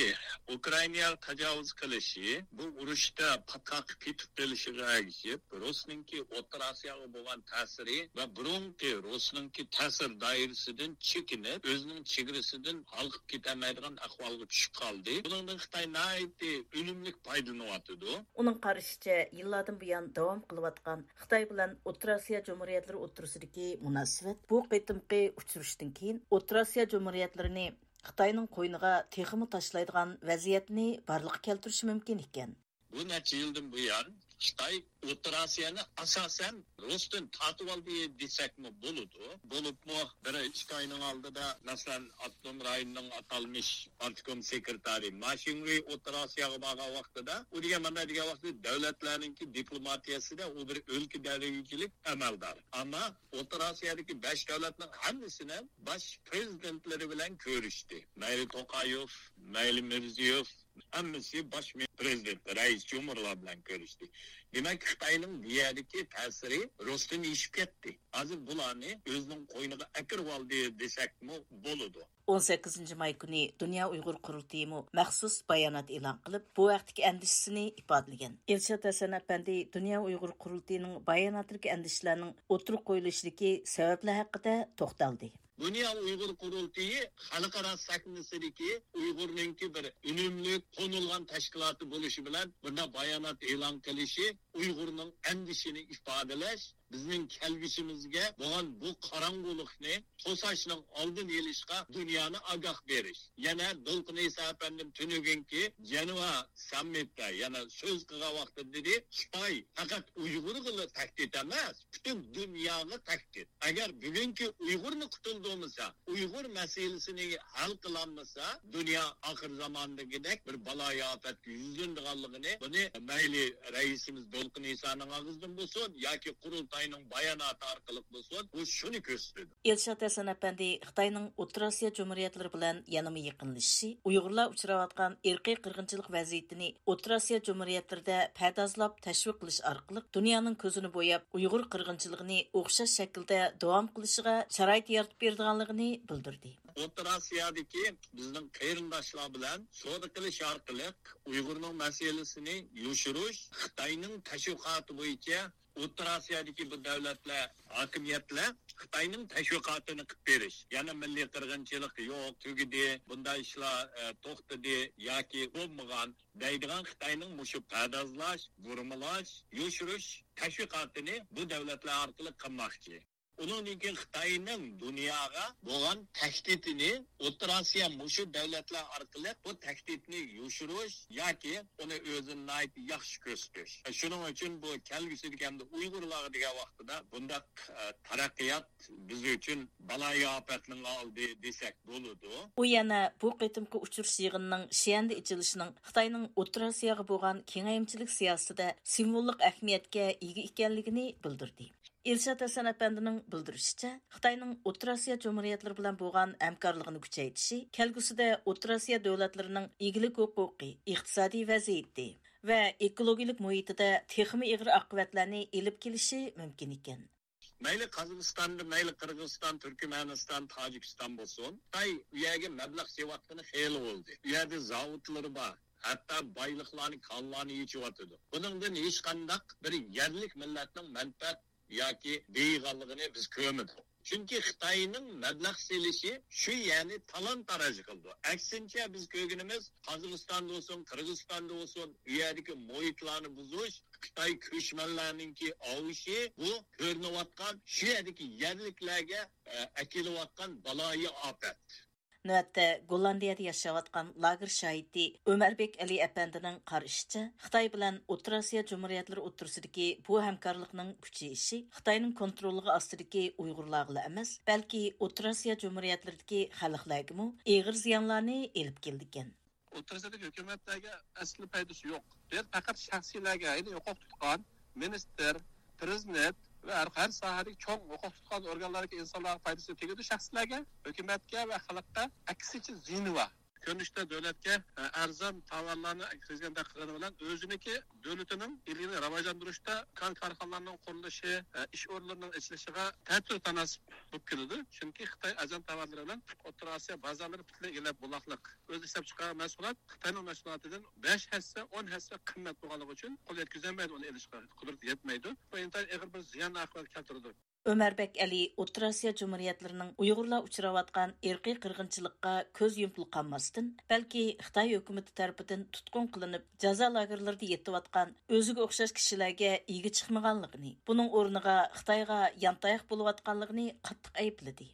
ئۇكرائىناغا تاجاۋۇز قىلىشى، بۇ ئۇرۇشتا پاتقاققا پېتىپ قېلىشىغا ئەگىشىپ، رۇسنىڭكى ئوتتۇرا ئاسىياغا بولغان تەسىرى ۋە بۇرۇنقى رۇسنىڭكى تەسىر دائىرىسىدىن چېكىنىپ، ئۆزىنىڭ چېگرىسىدىن ھالقىپ كېتەلمەيدىغان ئەھۋالغا چۈشۈپ قالدى. بۇنىڭدىن خىتاي ناھايىتى ئۈنۈملۈك پايدىلىنىۋاتىدۇ. ئۇنىڭ قارىشىچە، يىللاردىن بۇيان داۋام قىلىۋاتقان خىتاي بىلەن ئوتتۇرا ئاسىيا جۇمھۇرىيەتلىرى ئوتتۇرىسىدىكى مۇناسىۋەت بۇ قېتىمقى ئۇچرىشىشتىن كېيىن ئوتتۇرا ئاسىيا جۇمھۇرىيەتلىرىنى خىتاينىڭ قوينىغا تېخىمۇ تاشلايدىغان ۋەزىيەتنى بارلىققا كەلتۈرۈشى مۇمكىن ئىكەن. بۇ نەچچە يىلدىن بۇيان خىتاي ئوتتۇرا ئاسىيانى ئاساسەن رۇستىن تارتىۋالدى دېسەكمۇ بولىدۇ. بولۇپمۇ بىر ئىككى ئاينىڭ ئالدىدا، مەسىلەن، ئاپتونوم رايوننىڭ ئاتالمىش پارتكوم سېكرېتارى ما شىڭۋېي ئوتتۇرا ئاسىياغا بارغان ۋاقتىدا، ئۇ دېگەن مانا دېگەن ۋاقتىدا دۆلەتلەرنىڭكى دىپلوماتىيەسىدە ئۇ بىر ئۆلكە دەرىجىلىك ئەمەلدار. ئەمما ئوتتۇرا ئاسىيادىكى بەش دۆلەتنىڭ ھەممىسىنىڭ باش پرېزىدېنتلىرى بىلەن كۆرۈشتى. مەيلى توقايېف، مەيلى مىرزىيېف، ھەممىسى باش مە-، پرېزىدېنت، رەئىس جۇمھۇرلار بىلەن كۆرۈشتى. دېمەك، خىتاينىڭ بۇ يەردىكى تەسىرى رۇستىن ئېشىپ كەتتى. ھازىر بۇلارنى ئۆزىنىڭ قوينىغا ئەكىرىۋالدى دېسەكمۇ بولىدۇ. ئون سەككىزىنچى ماي كۈنى دۇنيا ئۇيغۇر قۇرۇلتىيىمۇ مەخسۇس بايانات ئېلان قىلىپ، بۇ ھەقتىكى ئەندىشىسىنى ئىپادىلىگەن. ئىلشات ھەسەن ئەپەندى دۇنيا ئۇيغۇر قۇرۇلتىيىنىڭ باياناتىدىكى ئەندىشىلەرنىڭ ئوتتۇرىغا قويۇلۇشىدىكى سەۋەبلەر ھەققىدە توختالدى. دۇنيا ئۇيغۇر قۇرۇلتىيى خەلقئارا سەھنىسىدىكى ئۇيغۇرنىڭكى بىر ئۈنۈملۈك تونۇلغان تەشكىلاتى بولۇشى بىلەن بۇنداق بايانات ئېلان قىلىشى ئۇيغۇرنىڭ ئەندىشىنى ئىپادىلەش، بىزنىڭ كەلگۈسىمىزگە بولغان بۇ قاراڭغۇلۇقنى توساشنىڭ ئالدىنى ئېلىشقا دۇنيانى ئاگاھ بېرىش. يەنە دولقۇن ئەيسا ئەپەندىم تۈنۈگۈنكى جەنۋا ساممىتتا يەنە سۆز قىلغان ۋاقتىدا دېدى، خىتاي پەقەت ئۇيغۇرغىلا تەھدىت ئەمەس، پۈتۈن دۇنياغا تەھدىت. ئەگەر بۈگۈنكى ئۇيغۇرنى قۇتۇلدۇرمىسا، ئۇيغۇر مەسىلىسىنى ھەل قىلالمىسا، دۇنيا ئاخىر زاماندىكىدەك بىر بالايىئاپەتكە يۈزلىنىدىغانلىقىنى، بۇنى مەيلى رەئىسىمىز دولقۇن ئىسانىڭ ئاغزىدىن بولسۇن ياكى قۇرۇلتاينىڭ باياناتى ئارقىلىق بولسۇن، بۇ شۇنى كۆرسىتىدۇ. ئىلشات ھەسەن ئەپەندى خىتاينىڭ ئوتتۇرا ئاسىيا جۇمھۇرىيەتلىرى بىلەن يەنىمۇ يېقىنلىشىشى، ئۇيغۇرلار ئۇچراۋاتقان ئىرقىي قىرغىنچىلىق ۋەزىيىتىنى ئوتتۇرا ئاسىيا جۇمھۇرىيەتلىرىدە پەردازلاپ تەشۋىق قىلىش ئارقىلىق دۇنيانىڭ كۆزىنى بوياپ، ئۇيغۇر قىرغىنچىلىقىنى ئوخشاش شەكىلدە داۋام قىلىشىغا شارائىت يارىتىپ بېرىدىغانلىقىنى بىلدۈردى. ئوتتۇرا ئاسىيادىكى بىزنىڭ قېرىنداشلار بىلەن سودا قىلىش ئارقىلىق ئۇيغۇرنىڭ مەسىلىسىنى يوشۇرۇش خىتاينىڭ تەشۋىقاتى بويىچە ئوتتۇرا ئاسىيادىكى بۇ دۆلەتلەر، ھاكىمىيەتلەر خىتاينىڭ تەشۋىقاتىنى قىلىپ بېرىش، يەنە مىللىي قىرغىنچىلىق يوق، تۈگىدى، بۇنداق ئىشلار، ئە، توختىدى ياكى بولمىغان دەيدىغان خىتاينىڭ مۇشۇ پەردازلاش، بۇرمىلاش، يوشۇرۇش تەشۋىقاتىنى بۇ دۆلەتلەر ئارقىلىق قىلماقچى. ئۇنىڭدىن كېيىن خىتاينىڭ دۇنياغا بولغان تەھدىتىنى ئوتتۇرا ئاسىيا مۇشۇ دۆلەتلەر ئارقىلىق بۇ تەھدىتنى يوشۇرۇش ياكى ئۇنى ئۆزىنى ناھايىتى ياخشى كۆرسىتىش. شۇنىڭ ئۈچۈن بۇ كەلگۈسىدىكى ھەمدە ئۇيغۇرلارغا دېگەن ۋاقتىدا بۇنداق، ئە، تەرەققىيات بىز ئۈچۈن بالايىئاپەتنىڭ ئالدى دېسەك بولىدۇ. ئۇ يەنە بۇ قېتىمقى ئۇچرىشىش يىغىنىنىڭ شيەندە ئېچىلىشىنىڭ خىتاينىڭ ئوتتۇرا ئاسىياغا بولغان كېڭەيمىچىلىك سىياسىتىدە سىمۋوللۇق ئەھمىيەتكە ئىگە ئىكەنلىكىنى بىلدۈردى. ئىلشات ھەسەن ئەپەندىنىڭ بىلدۈرۈشىچە، خىتاينىڭ ئوتتۇرا ئاسىيا جۇمھۇرىيەتلىرى بىلەن بولغان ھەمكارلىقىنى كۈچەيتىشى كەلگۈسىدە ئوتتۇرا ئاسىيا دۆلەتلىرىنىڭ ئىگىلىك ھوقۇقى، ئىقتىسادىي ۋەزىيىتى ۋە ئېكولوگىيىلىك مۇھىتىدا تېخىمۇ ئېغىر ئاقىۋەتلەرنى ئېلىپ كېلىشى مۇمكىن ئىكەن. مەيلى قازاقىستاندا، مەيلى قىرغىزىستان، تۈركمەنىستان، تاجىكىستان بولسۇن، خىتاي ئۇ يەرگە مەبلەغ سېلىۋاتقىنى خېلى بولدى. ئۇ يەردە زاۋۇتلىرى بار، ھەتتا بايلىقلارنى، كانلارنى ئېچىۋاتىدۇ. بۇنىڭدىن ھېچقانداق بىر يەرلىك مىللەتنىڭ مەنپەئەت ياكى بېيىغانلىقىنى بىز كۆرمىدۇق. چۈنكى خىتاينىڭ مەبلەغ سېلىشى شۇ يەرنى تالان-تاراج قىلىدۇ. ئەكسىنچە، بىز كۆرگىنىمىز، قازاقىستاندا بولسۇن، قىرغىزىستاندا بولسۇن، ئۇ يەردىكى مۇھىتلارنى بۇزۇش، خىتاي كۆچمەنلەرنىڭكى ئاۋۇشى، بۇ كۆرۈنۈۋاتقان شۇ يەردىكى يەرلىكلەرگە، ئە، ئەكېلىۋاتقان بالايىئاپەت. نۆۋەتتە گوللاندىيەدە ياشاۋاتقان لاگېر شاھىتى ئۆمەربېك ئەلى ئەپەندىنىڭ قارىشىچە، خىتاي بىلەن ئوتتۇرا ئاسىيا جۇمھۇرىيەتلىرى ئوتتۇرىسىدىكى بۇ ھەمكارلىقنىڭ كۈچىيىشى خىتاينىڭ كونتروللۇقى ئاستىدىكى ئۇيغۇرلارغىلا ئەمەس، بەلكى ئوتتۇرا ئاسىيا جۇمھۇرىيەتلىرىدىكى خەلقلەرگىمۇ ئېغىر زىيانلارنى ئېلىپ كېلىدىكەن. ئوتتۇرا ئاسىيادىكى ھۆكۈمەتلەرگە ئەسلى پايدىسى يوق. بۇ يەردە پەقەت شەخسىيلەرگە، يەنى ھوقۇق تۇتقان مىنىستىر، پرېزىدېنت ۋە ھەر، ھەر ساھەدىكى چوڭ ھوقۇق تۇتقان ئورگانلاردىكى ئىنسانلارغا پايدىسى تېگىدۇ، شەخسلەرگە، ھۆكۈمەتكە ۋە خەلققە ئەكسىچە زىيىنى بار. كۆرۈنۈشتە دۆلەتكە، ئە، ئەرزان تاۋارلارنى كىرگۈزگەندەك قىلغىنى بىلەن ئۆزىنىڭكى دۆلىتىنىڭ ئىگىلىكىنى راۋاجلاندۇرۇشتا كان كارخانىلارنىڭ قۇرۇلۇشى، ئە، ئىش ئورۇنلىرىنىڭ ئېچىلىشىغا تەتۈر تاناسىپ بولۇپ كېلىدۇ. چۈنكى خىتاي ئەرزان تاۋارلىرى بىلەن ئوتتۇرا ئاسىيا بازارلىرى پۈتۈنلەي ئىگىلەپ بولغانلىق. ئۆزى ئىشلەپچىقارغان مەھسۇلات خىتاينىڭ مەھسۇلاتىدىن بەش ھەسسە، ئون ھەسسە قىممەت بولغانلىقى ئۈچۈن قول يەتكۈزەلمەيدۇ، ئۇنى ئېلىشقا قۇدرىتى يەتمەيدۇ. بۇ ئىنتايىن ئېغىر بىر زىيان ئاقىۋەت كەلتۈرىدۇ. ئۆمەربەك ئەلى ئوتتۇرا ئاسىيا جۇمھۇرىيەتلىرىنىڭ ئۇيغۇرلار ئۇچراۋاتقان ئىرقىي قىرغىنچىلىققا كۆز يۇمۇپلا قالماستىن، بەلكى خىتاي ھۆكۈمىتى تەرىپىدىن تۇتقۇن قىلىنىپ، جازا لاگېرلىرىدا يېتىۋاتقان ئۆزىگە ئوخشاش كىشىلەرگە ئىگە چىقمىغانلىقىنى، بۇنىڭ ئورنىغا خىتايغا يانتاياق بولۇۋاتقانلىقىنى قاتتىق ئەيىبلىدى.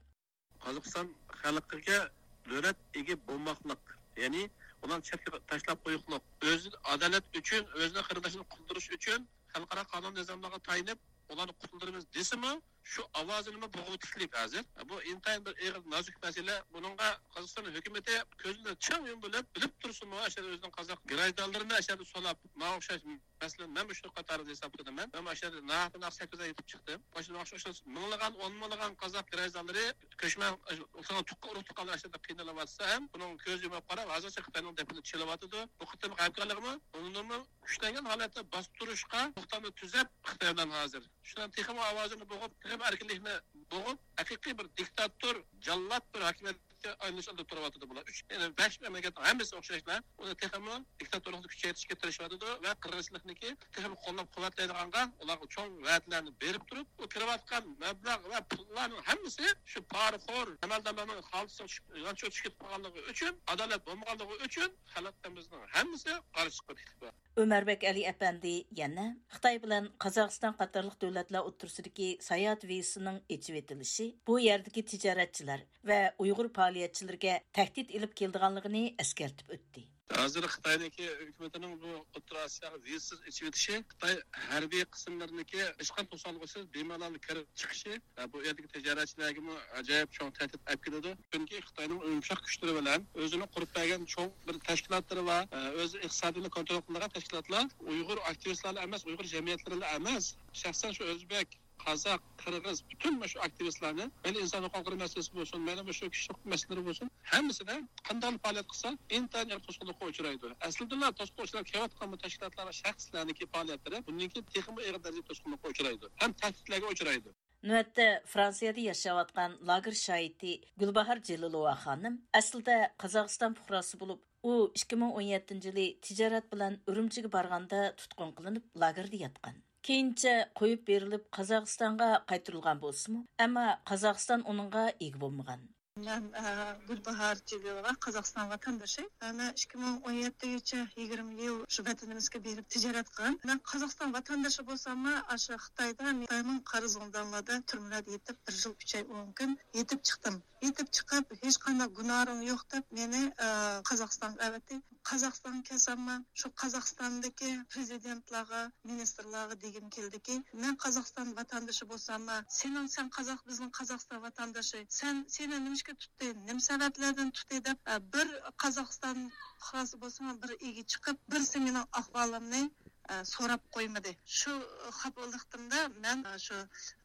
قازاقىستان خەلقىگە دۆلەت ئىگە بولماقلىق، يەنى ئۇلارنى چەتكە تاشلاپ قويۇقلۇق، ئۆزى ئادالەت ئۈچۈن، ئۆزىنىڭ قېرىنداشىنى قۇتۇلدۇرۇش ئۈچۈن خەلقئارا قانۇن نىزاملارغا تايىنىپ، ئۇلارنى قۇتۇلدۇرىمىز دېسىمۇ، شۇ ئاۋازىنىمۇ بوغۇۋېتىشلىك ھازىر. بۇ ئىنتايىن بىر ئېغىر، نازۇك مەسىلە. بۇنىڭغا قازاقىستان ھۆكۈمىتى كۆزىنى چىڭ يۇمۇپ بىلىپ، بىلىپ تۇرسىمۇ، ئاشۇ ئۆزىنىڭ قازاق گىراژدانلىرىنى ئاشۇ يەردە سولاپ، ماڭا ئوخشاش مەسىلەن، مەنمۇ شۇ قاتاردا ھېسابلىنىمەن. مەنمۇ ئاشۇ يەردە ناھەق، ناھەق سەككىز ئاي يېتىپ چىقتىم. ماشۇ ماڭا ئوخشاش مىڭلىغان، ئون مىڭلىغان قازاق گىراژدانلىرى، كۆچمەن، ئۇرۇق تۇغقانلار ئاشۇ يەردە قىينىلىۋاتسا ھەم، بۇنىڭ كۆز يۇمۇپ قاراپ، ھازىرچە خىتاينىڭ دەپىنى چېلىۋاتىدۇ. بۇ قېتىمقى ھەمكارلىقمۇ ئۇنىمۇ كۈچلەنگەن ھالەتتە باستۇرۇشقا توختامنى تۈزەپ، خىتاي بىلەن ھازىر شۇنىڭ تېخىمۇ ئاۋازىنى بوغۇپ، تېخىمۇ ئەركىنلىكنى بوغۇپ، ھەقىقىي بىر دىكتاتور، جاللات بىر ھاكىمىيەت ئايلىنىش ئالدىدا تۇرۇۋاتىدۇ بۇلار. ئۈچ، يەنى بەش مەملىكەتنىڭ ھەممىسى ئوخشاشلا ئۇنى تېخىمۇ دىكتاتورلۇقنى كۈچەيتىشكە تىرىشىۋاتىدۇ ۋە قىرغىنچىلىقنىكى تېخىمۇ قوللاپ قۇۋۋەتلەيدىغانغا ئۇلارغا چوڭ ۋەدىلەرنى بېرىپ تۇرۇپ، ئۇ كىرىۋاتقان مەبلەغ ۋە پۇللارنىڭ ھەممىسى شۇ پارىخور ئەمەلدارلارنىڭ خالتىسىغا چۈشۈپ، يانچۇقىغا چۈشۈپ قالغانلىقى ئۈچۈن، ئادالەت بولمىغانلىقى ئۈچۈن خەلقىمىزنىڭ ھەممىسى قارشى چىقىپ كېتىپتۇ. ئۆمەربەك ئەلى ئەپەندى يەنە خىتاي بىلەن قازاقىستان قاتارلىق دۆلەتلەر ئوتتۇرىسىدىكى ساياھەت ۋىزىسىنىڭ ئېچىۋېتىلىشى بۇ يەردىكى تىجارەتچىلەر ۋە ئۇيغۇر پائالىيەتچىلىرىگە تەھدىت ئېلىپ كېلىدىغانلىقىنى ئەسكەرتىپ ئۆتتى. ھازىر خىتاينىڭكى ھۆكۈمىتىنىڭ بۇ ئوتتۇرا ئاسىياغا ۋىزىسىز ئېچىۋېتىشى خىتاي ھەربىي قىسىملىرىنىڭكى ھېچقانداق توسالغۇسىز بىمالال كىرىپ چىقىشى، بۇ يەردىكى تىجارەتچىلەرگىمۇ ئاجايىپ چوڭ تەھدىت ئەپ كېلىدۇ. چۈنكى خىتاينىڭ يۇمشاق كۈچلىرى بىلەن ئۆزىنىڭ قۇرۇپ بەرگەن چوڭ بىر تەشكىلاتلىرى بار، ئۆز ئىقتىسادىنى كونترول قىلىدىغان تەشكىلاتلار ئۇيغۇر ئاكتىۋىستلارلا ئەمەس، ئۇيغۇر جەمئىيەتلىرىلا ئەمەس، شەخسەن شۇ ئۆزبەك، قازاق، قىرغىز، پۈتۈن مۇشۇ ئاكتىۋىستلارنى، مەيلى ئىنسان ھوقۇقلىرى مەسىلىسى بولسۇن، مەيلى مۇشۇ كىشىلىك مەسىلىلىرى بولسۇن، ھەممىسىدە قانداق پائالىيەت قىلسا، ئىنتايىن ئېغىر توسقۇنلۇققا ئۇچرايدۇ. ئەسلىدىلا توسقۇنلۇققا ئۇچراپ كېلىۋاتقان بۇ تەشكىلاتلار ۋە شەخسلەرنىڭكى پائالىيەتلىرى بۇندىن كېيىن تېخىمۇ ئېغىر دەرىجىدە توسقۇنلۇققا ئۇچرايدۇ ھەم تەھدىتلەرگە ئۇچرايدۇ. نۆۋەتتە فرانسىيەدە ياشاۋاتقان لاگېر شاھىتى گۈلباھار جېلىلوۋا خانىم ئەسلىدە قازاقىستان پۇقراسى بولۇپ، ئۇ ئىككى مىڭ ئون يەتتىنچى يىلى تىجارەت بىلەن ئۈرۈمچىگە بارغاندا تۇتقۇن قىلىنىپ، لاگېردا ياتقان. كېيىنچە قويۇپ بېرىلىپ، قازاقىستانغا قايتۇرۇلغان بولسىمۇ، ئەمما قازاقىستان ئۇنىڭغا ئىگە بولمىغان. مەن، ئە، گۈلباھار جېلىلوۋا، قازاقىستان ۋاتاندىشى. مەن ئىككى مىڭ ئون يەتتىگىچە يىگىرمە يىل شۇ ۋەتىنىمىزگە بېرىپ تىجارەت قىلغان. مەن قازاقىستان ۋاتاندىشى بولساممۇ، ئاشۇ خىتايدا خىتاينىڭ قارا زىندانلاردا، تۈرمىلەردە يېتىپ، بىر يىل ئۈچ ئاي ئون كۈن يېتىپ چىقتىم. يېتىپ چىقىپ، ھېچقانداق گۇناھىم يوق دەپ مېنى، ئە، قازاقىستانغا ئەۋەتتى. قازاقىستانغا كەلسەممۇ، شۇ قازاقىستاندىكى پرېزىدېنتلارغا، مىنىستىرلارغا دېگۈم كېلىدىكى، مەن قازاقىستان ۋاتاندىشى بولساممۇ، سېنىڭ، سەن قازاق، بىزنىڭ قازاقىستان ۋاتاندىشى، سەن، سېنى نېمىشقا تۇتتى، نېمە سەۋەبلەردىن تۇتتى دەپ، ئە، بىر قازاقىستان پۇقراسى بولسىمۇ، بىر ئىگە چىقىپ، بىرسى مېنىڭ ئەھۋالىمنى، ئە، سوراپ قويمىدى. شۇ خاپىلىقتىمدا مەن، ئە، شۇ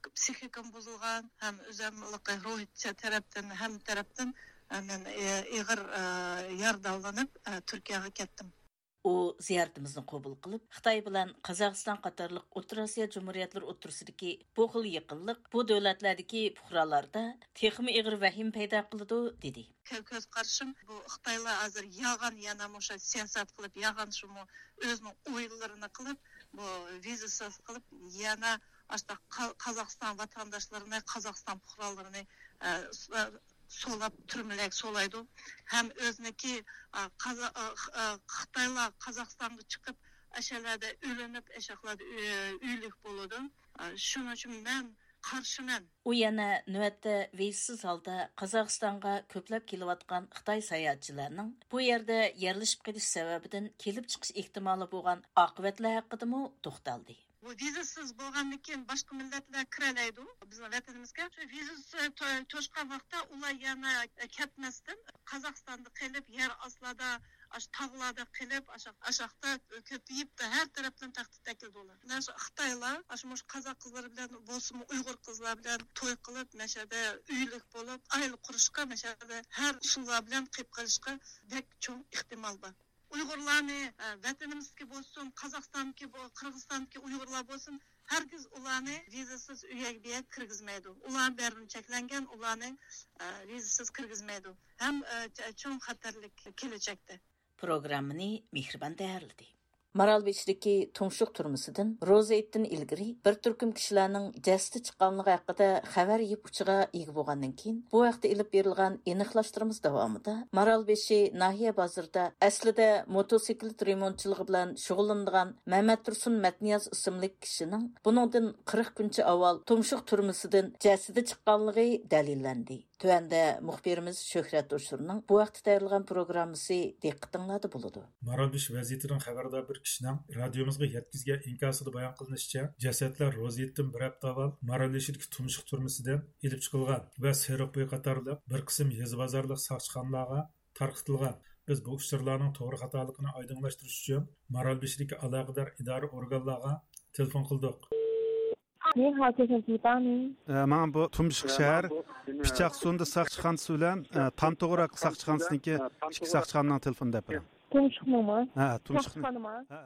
پسىخىكام بۇزۇلغان ھەم ئۆزۈملۈكى روھىي تەرەپتىن، ھەممە تەرەپتىن، ئە، مەن، ئە، ئېغىر، ئە، يارىدارلىنىپ، ئە، تۈركىيەگە كەتتىم. ئۇ زىيارىتىمىزنى قوبۇل قىلىپ، خىتاي بىلەن قازاقىستان قاتارلىق ئوتتۇرا ئاسىيا جۇمھۇرىيەتلىرى ئوتتۇرىسىدىكى بۇ خىل يېقىنلىق بۇ دۆلەتلەردىكى پۇقرالاردا تېخىمۇ ئېغىر ۋەھىمە پەيدا قىلىدۇ، دېدى. كۆ-، كۆز قارىشىم، بۇ خىتايلار ھازىر يالغان يەنە مۇشۇ سىياسەت قىلىپ، يالغان شۇمۇ ئۆزىنىڭ ئويۇنلىرىنى قىلىپ، بۇ ۋىزىسىز قىلىپ، يەنە ئاشۇنداق قا-، قازاقىستان ۋاتانداشلىرىنى، قازاقىستان پۇقرالىرىنى، ئە، س-، ئە، سولاپ، تۈرمىلەرگە سولايدۇ. ھەم ئۆزىنىڭكى، ئە، قازا-، ئە، خ-، ئە، خىتايلار قازاقىستانغا چىقىپ، ئەشەلەردە ئۆلۈنۈپ، ئەشەقلەردە ئۆ-، ئۆلۈك بولىدۇ. ئە، شۇنىڭ ئۈچۈن مەن قارشىمەن. ئۇ يەنە نۆۋەتتە ۋىزىسىز ھالدا قازاقىستانغا كۆپلەپ كېلىۋاتقان خىتاي ساياھەتچىلەرنىڭ بۇ يەردە يەرلىشىپ قېلىش سەۋەبىدىن كېلىپ چىقىش ئېھتىمالى بولغان ئاقىۋەتلەر ھەققىدىمۇ توختالدى. بۇ ۋىزىسىز بولغاندىن كېيىن باشقا مىللەتلەر كىرەلەيدۇ بىزنىڭ ۋەتىنىمىزگە. شۇ ۋىزىسى تو-، توشقان ۋاقىتتا ئۇلار يەنە كەتمەستىن قازاقىستاندا قېلىپ، يەر ئاستىدا، ئاشۇ تاغلاردا قېلىپ، ئاشا-، ئاشاقتا كۆپىيىپ، ھەر تەرەپتىن تەھدىت ئەكېلىدۇ ئۇلار. مانا شۇ خىتايلار، ئاشۇ مۇشۇ قازاق قىزلىرى بىلەن بولسىمۇ، ئۇيغۇر قىزلار بىلەن توي قىلىپ، مەشەدە ئۆيلۈك بولۇپ، ئائىلە قۇرۇشقا مەشەدە ھەر ئۇسۇللار بىلەن قېلىپ قېلىشقا بەك چوڭ ئېھتىمال بار. ئۇيغۇرلارنى، ئە، ۋەتىنىمىزدىكى بولسۇن، قازاقىستاندىكى بو-، قىرغىزىستاندىكى ئۇيغۇرلار بولسۇن، ھەرگىز ئۇلارنى ۋىزىسىز ئۆيگە بۇ يەرگە كىرگۈزمەيدۇ. ئۇلار بەرىبىر چەكلەنگەن، ئۇلارنى، ئە، ۋىزىسىز كىرگۈزمەيدۇ. ھەم، ئە، چ-، چوڭ خەتەرلىك كېلەچەكتە. پروگراممىنى مېھرىبان تەييارلىدى. مارالبېشىدىكى تۇمشۇق تۈرمىسىدىن روزا ھېيتتىن ئىلگىرى بىر تۈركۈم كىشىلەرنىڭ جەسىتى چىققانلىقى ھەققىدە خەۋەر يىپ ئۇچىغا ئىگە بولغاندىن كېيىن، بۇ ھەقتە ئېلىپ بېرىلغان ئېنىقلاشتۇرمىز داۋامىدا مارالبېشى ناھىيە بازىرىدا ئەسلىدە موتوسىكلىت رېمونتچىلىقى بىلەن شۇغۇللىنىدىغان مەمەتتۇرسۇن مەتنىياز ئىسىملىك كىشىنىڭ بۇنىڭدىن قىرىق كۈنچە ئاۋۋال تۇمشۇق تۈرمىسىدىن جەسىتى چىققانلىقى دەلىللەندى. تۆۋەندە مۇخبىرىمىز شۆھرەت ئوشۇرنىڭ بۇ ھەقتە تەييارلىغان پروگراممىسى دىققىتىڭلاردا بولىدۇ. مارالبېشى ۋەزىيىتىدىن خەۋەردار بىر كىشىنىڭ رادىيومىزغا يەتكۈزگەن ئىنكاسىدا بايان قىلىنىشىچە، جەسەتلەر روزا ھېيتتىن بىر ھەپتە ئاۋۋال مارالبېشىدىكى تۇمشۇق تۈرمىسىدىن ئېلىپ چىقىلغان ۋە سېرىق بوي قاتارلىق بىر قىسىم يېزا بازارلىق ساقچىخانىلارغا تارقىتىلغان. بىز بۇ ئۇچۇرلارنىڭ توغرا خاتالىقىنى ئايدىڭلاشتۇرۇش ئۈچۈن مارالبېشىدىكى ئالاقىدار ئىدارە ئورگانلارغا تېلېفون قىلدۇق. 你好，先生，请帮您。 ئە، ماڭا بۇ تۇمشۇق شەھەر پىچاقسۇندى ساقچىخانىسى بىلەن، ئە، تامتوغراق ساقچىخانىسىنىڭكى ئىككى ساقچىخانىنىڭ تېلېفونىنى دەپ بېرىڭ. 东城吗؟ ھە، تۇمشۇقنى. ساقچىخانىما؟ ھە.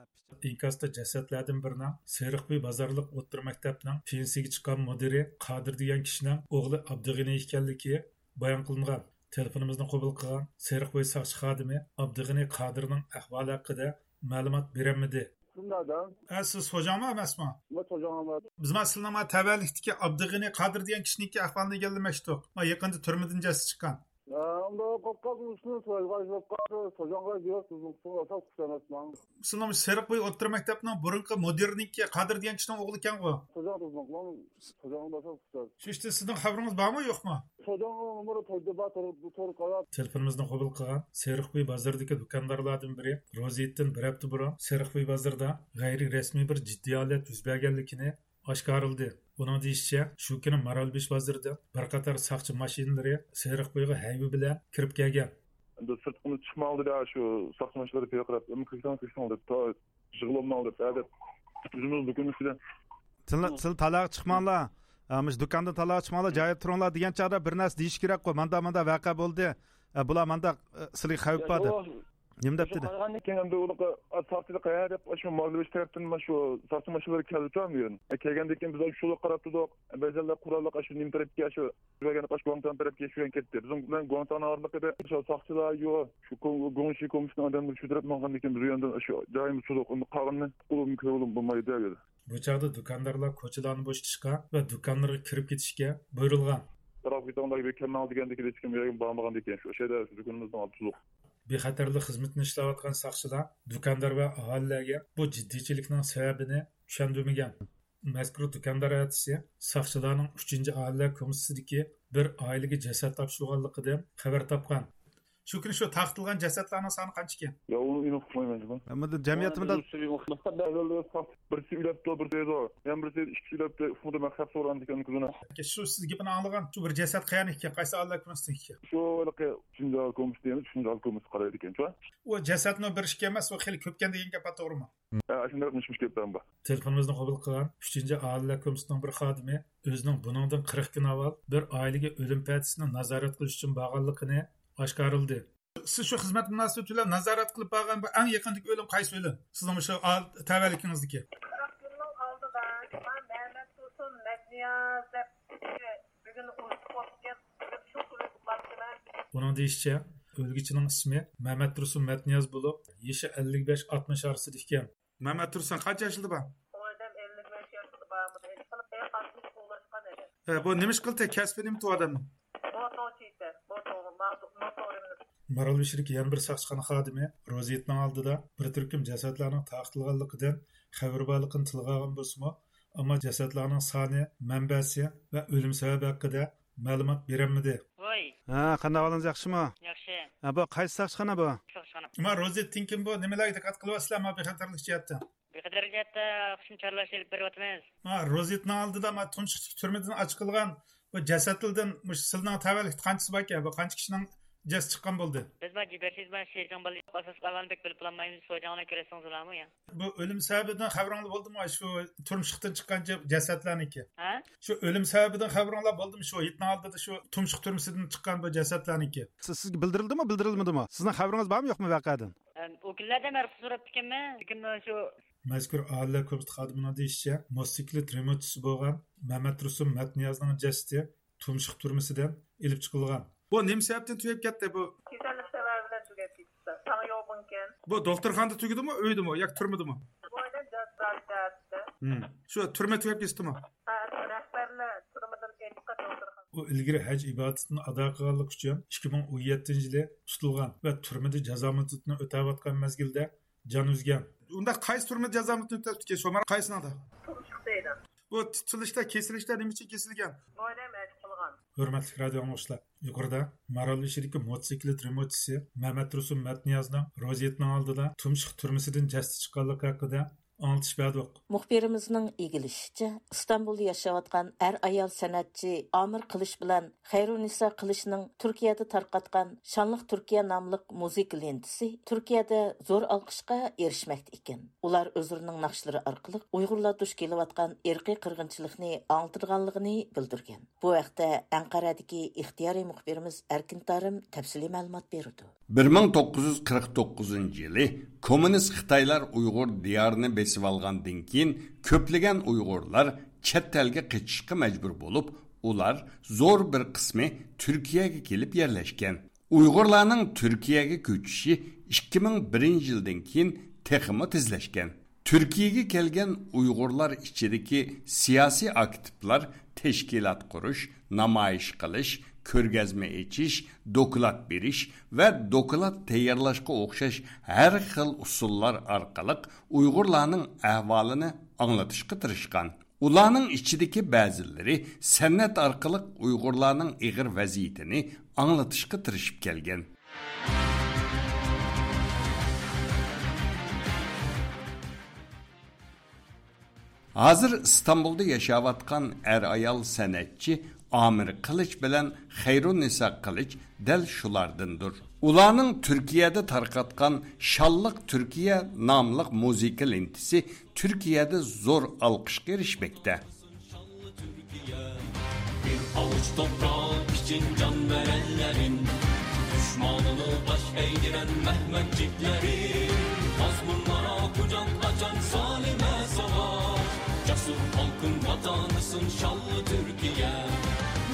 ئىنكاستا جەسەتلەردىن بىرىنىڭ سېرىقبۇي بازارلىق ئوتتۇرا مەكتەپنىڭ پېنسىيىگە چىققان مۇدىرى قادىر دېگەن كىشىنىڭ ئوغلى ئابدۇغېنى ئىكەنلىكى بايان قىلىنغان. تېلېفونىمىزنى قوبۇل قىلغان سېرىقبويى ساقچى خادىمى ئابدۇغېنى قادىرنىڭ ئەھۋالى ھەققىدە مەلۇمات بېرەلمىدى. شۇنداق. ئە، سىز خوجاڭمۇ ئەمەسمۇ؟ مەن خوجاڭ ئەمەس. بىز مانا سىلىنىڭ مانا تەۋەلىكتىكى ئابدۇغېنى قادىر دېگەن كىشىنىڭكى ئەھۋالىنى ئىگىلىمەكچىدۇق. مانا يېقىندا تۈرمىدىن جەسىتى چىققان. ھە، ئۇنداق قاپقالدىم، ئۇشۇنى سورايدىغان ئىش بولۇپ قالدى. خوجاڭغا يوق، بىزنىڭ قىسمىغا ئاساس كۈتەمەسمەن. سىلىنىڭ سېرىقبويى ئوتتۇرا مەكتەپنىڭ بۇرۇنقى مۇدىرىنىڭكى، قادىر دېگەن كىشىنىڭ ئوغلى ئىكەنغۇ؟ خوجاڭ بىزنىڭ، خوجاڭ ئاساس كۈتەمەس. شۇ ئىشتا سىزنىڭ خەۋىرىڭىز بارمۇ، يوقمۇ؟ خوجاڭنىڭ نومۇرى تويدا بار، تور، تور قاراپ. تېلېفونىمىزنى قوبۇل قىلغان سېرىقبويى بازىرىدىكى دۇكاندارلاردىن بىرى روزىيېتتىن بىر ھەپتە بۇرۇن سېرىقبويى بازىرىدا غەيرىي رەسمىي بىر جىددىي ھالەت يۈز بەرگەنلىكىنى ئاشكارىلىدى. ئۇنىڭ دېيىشىچە، شۇ كۈنى مارالبېشى بازىرىدىن بىر قاتار ساقچى ماشىنىلىرى سېرىقبويىغا ھەيۋە بىلەن كىرىپ كەلگەن. ئەمدى سىرتقىمىز چىقماڭ دېدى، شۇ ساقچى ماشىنىلىرى پىيادە قىلىپ، ئەمما كىرسەڭ، كىرسەڭ دەپ، تا يىغلىماڭ دەپ، ھە دەپ، ئۆزىمىز دۇكان ئىچىدە. سىلەر، سىلەر تالاغا چىقماڭلار. ئە، مۇشۇ دۇكاندىن تالاغا چىقماڭلار، جايىدا تۇرۇڭلار دېگەن چاغدا بىر نەرسە دېيىش كېرەكقۇ. ماندا، ماندا ۋەقە بولدى. ئە، بۇلار ماندا، ئە، سىلىگە خەۋپ بار دەپ. نېمە دەپ دېدى؟ قارىغاندىن كېيىن ئەمدى ئۇنىڭغا، ئا، ساقچىلار قەيەر دەپ، شۇ مارالبېشى تەرەپتىن شۇ ساقچى ماشىنىلىرى كەلدى بۈگۈن. ئە، كەلگەندىن كېيىن بىز شۇلار قاراپ تۇردۇق. بەزىلەر قوراللىق شۇ نېمە تەرەپكە، شۇ بەرگەن ئاشۇ گۇاڭتاڭ تەرەپكە شۇ يەنە كەتتى. بىزنىڭ بىلەن گۇاڭتاڭنىڭ ئارىلىقىدا شۇ ساقچىلار يوق، شۇ گۇڭشى كومىتېتنىڭ ئادەملىرى شۇ تەرەپتىن ماڭغاندىن كېيىن بىز ئۇ يەردىن شۇ جايىمىز تۇردۇق. ئۇندا قالغىنىنى قولۇم كۆرۈۋالغىلى بولمايدۇ دەپ. بۇ چاغدا دۇكاندارلار كوچىلارنى بوشىتىشقا ۋە دۇكانلىرىغا كىرىپ كېتىشكە بۇيرۇلغان. تاراپ كېتىڭلار، بىر كەلمەڭ دېگەندىكىن ھېچكىم يەرگە بارمىغاندىكىن شۇ شەھەردە شۇ دۇكىنىمىزنىڭ ئالدىدا تۇردۇق. بىخەتەرلىك خىزمىتىنى ئىشلەۋاتقان ساقچىلار دۇكاندار ۋە ئاھالىلەرگە بۇ جىددىيچىلىكنىڭ سەۋەبىنى چۈشەندۈرمىگەن. مەزكۇر دۇكاندار ئەتىسى ساقچىلارنىڭ ئۈچىنچى ئاھالىلەر كومىتېتىدىكى بىر ئائىلىگە جەسەت تاپشۇرغانلىقىدىن خەۋەر تاپقان. شۇ كۈنى شۇ تارقىتىلغان جەسەتلەرنىڭ سانى قانچىكەن؟ يا، ئۇنى ئېنىق ئۇقمايمەن جۇمۇ. ئەمما جەمئىيەتتە مۇنداق بىرسى ئۆلۈپتۇ، بىرسى دەيدۇ. يەنە بىرسى ئىككى ئۆلۈپتۇ، ئۇقمىدىم، مەن خەپ سورىغاندىكىن كۈنى. شۇ سىز گېپىنى ئاڭلىغان شۇ بىر جەسەت قەيەرنىڭكى، قايسى ئاھالىلەر كومىتېتىنىڭكى؟ شۇ ھېلىقى ئۈچىنچى ئاھالە كومىتېتى دەيمىز، ئۈچىنچى ئاھالە كومىتېتى قارايدىكەن شۇ. ئۇ جەسەتنىڭ بىر ئىككى ئەمەس، ئۇ خېلى كۆپكەن دېگەن گەپ بار، توغرىمۇ؟ ھە، شۇنداق مىش-مىش گەپلەر بار. تېلېفونىمىزنى قوبۇل قىلغان ئۈچىنچى ئاھالىلەر كومىتېتىنىڭ بىر خادىمى ئۆزىنىڭ بۇنىڭدىن قىرىق كۈن ئاۋۋال بىر ئائىلىگە ئۆلۈم پەدىسىنى نازارەت قىلىش ئۈچۈن بارغانلىقىنى ئاشكارىلىدى. سىز شۇ خىزمەت مۇناسىۋىتى بىلەن نازارەت قىلىپ بارغان بۇ ئەڭ يېقىندىكى ئۆلۈم قايسى ئۆلۈم؟ سىزنىڭ مۇشۇ ئال-، تەۋەلىكىڭىزدىكى؟ قىرىق كۈننىڭ ئالدىدا مەمەت تۇرسۇن مەتنىياز دەپ بۈگۈن ئۇرۇق بولۇپ كەتتى. شۇ كۈنى ئۇخلاپتىمەن. ئۇنىڭ دېيىشىچە، ئۆلگۈچىنىڭ ئىسمى مەمەت تۇرسۇن مەتنىياز بولۇپ، يېشى ئەللىك بەش ئاتمىش ئارىسىدا ئىكەن. مەمەت تۇرسۇن قانچە ياشىدا بار؟ ئۇ ئادەم ئەللىك بەش ياشىدا بار. بۇنى ھېس قىلىپ، ئەي، قاتتىق قوغلاشقان ئىدى. ھە، بۇ نېمە ئىش قىلدى؟ كەسپى نېمە ئۇ ئادەمنىڭ؟ موتور چېيىتە، موتور، موتور، موتور. مارالبېشىدىكى يەنە بىر ساقچىخانا خادىمى روزىيېتنىڭ ئالدىدا بىر تۈركۈم جەسەتلەرنىڭ تارقىتىلغانلىقىدىن خەۋىرى بارلىقىنى تىلغا ئالغان بولسىمۇ، ئەمما جەسەتلەرنىڭ سانى، مەنبەسى ۋە ئۆلۈم سەۋەبى ھەققىدە مەلۇمات بېرەلمىدى. ۋاي. ھە، قانداق ئەھۋالىڭىز، ياخشىمۇ؟ ياخشى. ھە، بۇ قايسى ساقچىخانا بۇ؟ ساقچىخانا. ما روزىيېتتىن كېيىن بۇ نېمىلەرگە دىققەت قىلىۋاتىسىلەر، ما بىخەتەرلىك جەھەتتە؟ بىخەتەرلىك جەھەتتە شۇنى چارلاش ئېلىپ بېرىۋاتىمىز. ھە، روزىيېتنىڭ ئالدىدا ما تۇمشۇقتىكى تۈرمىدىن ئاچىقىلغان بۇ جەسەتلەردىن مۇشۇ سىلىنىڭ تەۋەلىكتە قانچىسى باركەن؟ بۇ قانچە كىشىنىڭ جەسىتى چىققان بولدى؟ بىز ما جىبەرسىز ما شىجاڭ بالىلىق ئاساسلىق ئەھۋالنى بەك بىلىپ بولالمايمىز، شىجاڭنى كۆرسىڭىزلارمۇ يا؟ بۇ ئۆلۈم سەۋەبىدىن خەۋىرىڭلار بولدىمۇ؟ شۇ تۇمشۇقتىن چىققان جە-، جەسەتلەرنىڭكى. ھە؟ شۇ ئۆلۈم سەۋەبىدىن خەۋىرىڭلار بولدىمۇ؟ شۇ ھېيتنىڭ ئالدىدا شۇ تۇمشۇق تۈرمىسىدىن چىققان بۇ جەسەتلەرنىڭكى. سىز، سىزگە بىلدۈرۈلدىمۇ، بىلدۈرۈلمىدىمۇ؟ سىزنىڭ خەۋىرىڭىز بارمۇ، يوقمۇ ۋەقەدىن؟ ئەم، ئۇ كۈنلەردە مەن رۇخسەت سوراپتىكەنمەن. لېكىن شۇ مەزكۇر ئاھالىلەر كومىتېتى خادىمىنىڭ دېيىشىچە، موتوسىكلىت رېمونتچىسى بولغان مەمەتتۇرسۇن مەتنىيازنىڭ جەسىتى تۇمشۇق تۈرمىسىدىن ئېلىپ چىقىلغان. بۇ نېمە سەۋەبتىن تۈگەپ كەتتى بۇ؟ كېسەللىك سەۋەبى بىلەن تۈگەپ كېتىپتۇ. تاڭ يوغىنكەن. بۇ دوختۇرخانىدا تۈگىدىمۇ، ئۆيدىمۇ ياكى تۈرمىدىمۇ؟ بۇ ئادەم جازا تارتىپتۇ. ھىم. شۇ تۈرمە تۈگەپ كېتىپتىمۇ؟ ھە، رەھبەرلەر تۈرمىدىن ئېلىپ قاچتى دوختۇرخانىغا. ئۇ ئىلگىرى ھەج ئىبادىتىنى ئادا قىلغانلىقى ئۈچۈن ئىككى مىڭ ئون يەتتىنچى يىلى تۇتۇلغان ۋە تۈرمىدە جازا مۇددىتىنى ئۆتەۋاتقان مەزگىلدە جان ئۈزگەن. ئۇنداق قايسى تۈرمىدە جازا مۇددىتىنى ئۆتەپتىكەن، شۇ مانا قايسىنىڭدا؟ تۇمشۇق دەيدۇ. بۇ تۇتۇلۇشتا، كېسىلىشتە نېمە ئۈچۈن كېسىلگەن؟ بۇ ئادەم ھەج قىلغان. ھۆرمەتلىك رادىئو ئاڭلىغۇچىلار، يۇقىرىدا مارالبېشىدىكى موتوسىكلىت رېمونتچىسى مەمەتتۇرسۇن مەتنىيازنىڭ روزىيېتنىڭ ئالدىدا تۇمشۇق تۈرمىسىدىن جەسىتى چىققانلىقى ھەققىدە ئاڭلىتىش بەردۇق. مۇخبىرىمىزنىڭ ئىگىلىشىچە، ئىستانبۇلدا ياشاۋاتقان ئەر-ئايال سەنئەتچى ئامىر قىلىچ بىلەن خەيرۇننىسا قىلىچنىڭ تۈركىيەدە تارقاتقان شانلىق تۈركىيە ناملىق مۇزىكا لېنتىسى تۈركىيەدە زور ئالقىشقا ئېرىشمەكتە ئىكەن. ئۇلار ئۆزلىرىنىڭ ناخشىلىرى ئارقىلىق ئۇيغۇرلار دۇچ كېلىۋاتقان ئىرقىي قىرغىنچىلىقنى ئاڭلىتىدىغانلىقىنى بىلدۈرگەن. بۇ ھەقتە ئەنقەرەدىكى ئىختىيارىي مۇخبىرىمىز ئەركىن تارىم تەپسىلىي مەلۇمات بېرىدۇ. بىر مىڭ توققۇز يۈز قىرىق توققۇزىنچى يىلى كوممۇنىست خىتايلار ئۇيغۇر دىيارىنى بېسىۋالغاندىن كېيىن، كۆپلىگەن ئۇيغۇرلار چەت ئەلگە قېچىشقا مەجبۇر بولۇپ، ئۇلار زور بىر قىسمى تۈركىيەگە كېلىپ يەرلەشكەن. ئۇيغۇرلارنىڭ تۈركىيەگە كۆچۈشى ئىككى مىڭ بىرىنچى يىلدىن كېيىن تېخىمۇ تېزلەشكەن. تۈركىيەگە كەلگەن ئۇيغۇرلار ئىچىدىكى سىياسىي ئاكتىپلار تەشكىلات قۇرۇش، نامايىش قىلىش، كۆرگەزمە ئېچىش، دوكلات بېرىش ۋە دوكلات تەييارلاشقا ئوخشاش ھەر خىل ئۇسۇللار ئارقىلىق ئۇيغۇرلارنىڭ ئەھۋالىنى ئاڭلىتىشقا تىرىشقان. ئۇلارنىڭ ئىچىدىكى بەزىلىرى سەنئەت ئارقىلىق ئۇيغۇرلارنىڭ ئېغىر ۋەزىيىتىنى ئاڭلىتىشقا تىرىشىپ كەلگەن. ھازىر ئىستانبۇلدا ياشاۋاتقان ئەر-ئايال سەنئەتچى ئامىر قىلىچ بىلەن خەيرۇننىسا قىلىچ دەل شۇلاردىندۇر. ئۇلارنىڭ تۈركىيەدە تارقاتقان شانلىق تۈركىيە ناملىق مۇزىكا لېنتىسى تۈركىيەدە زور ئالقىشقا ئېرىشمەكتە. بىر ئاۋۇچ توپراق ئۈچۈن جان بەرەنلەرىم، دۈشمانىنى باش ئەگدۈرەن مەھمەتچىكلىرىم، مەزمۇنلارغا قۇچاق ئاچان سالىمە ساۋاش، جەسۇر خەلقىم ۋاتانىسىن شانلىق تۈركىيە.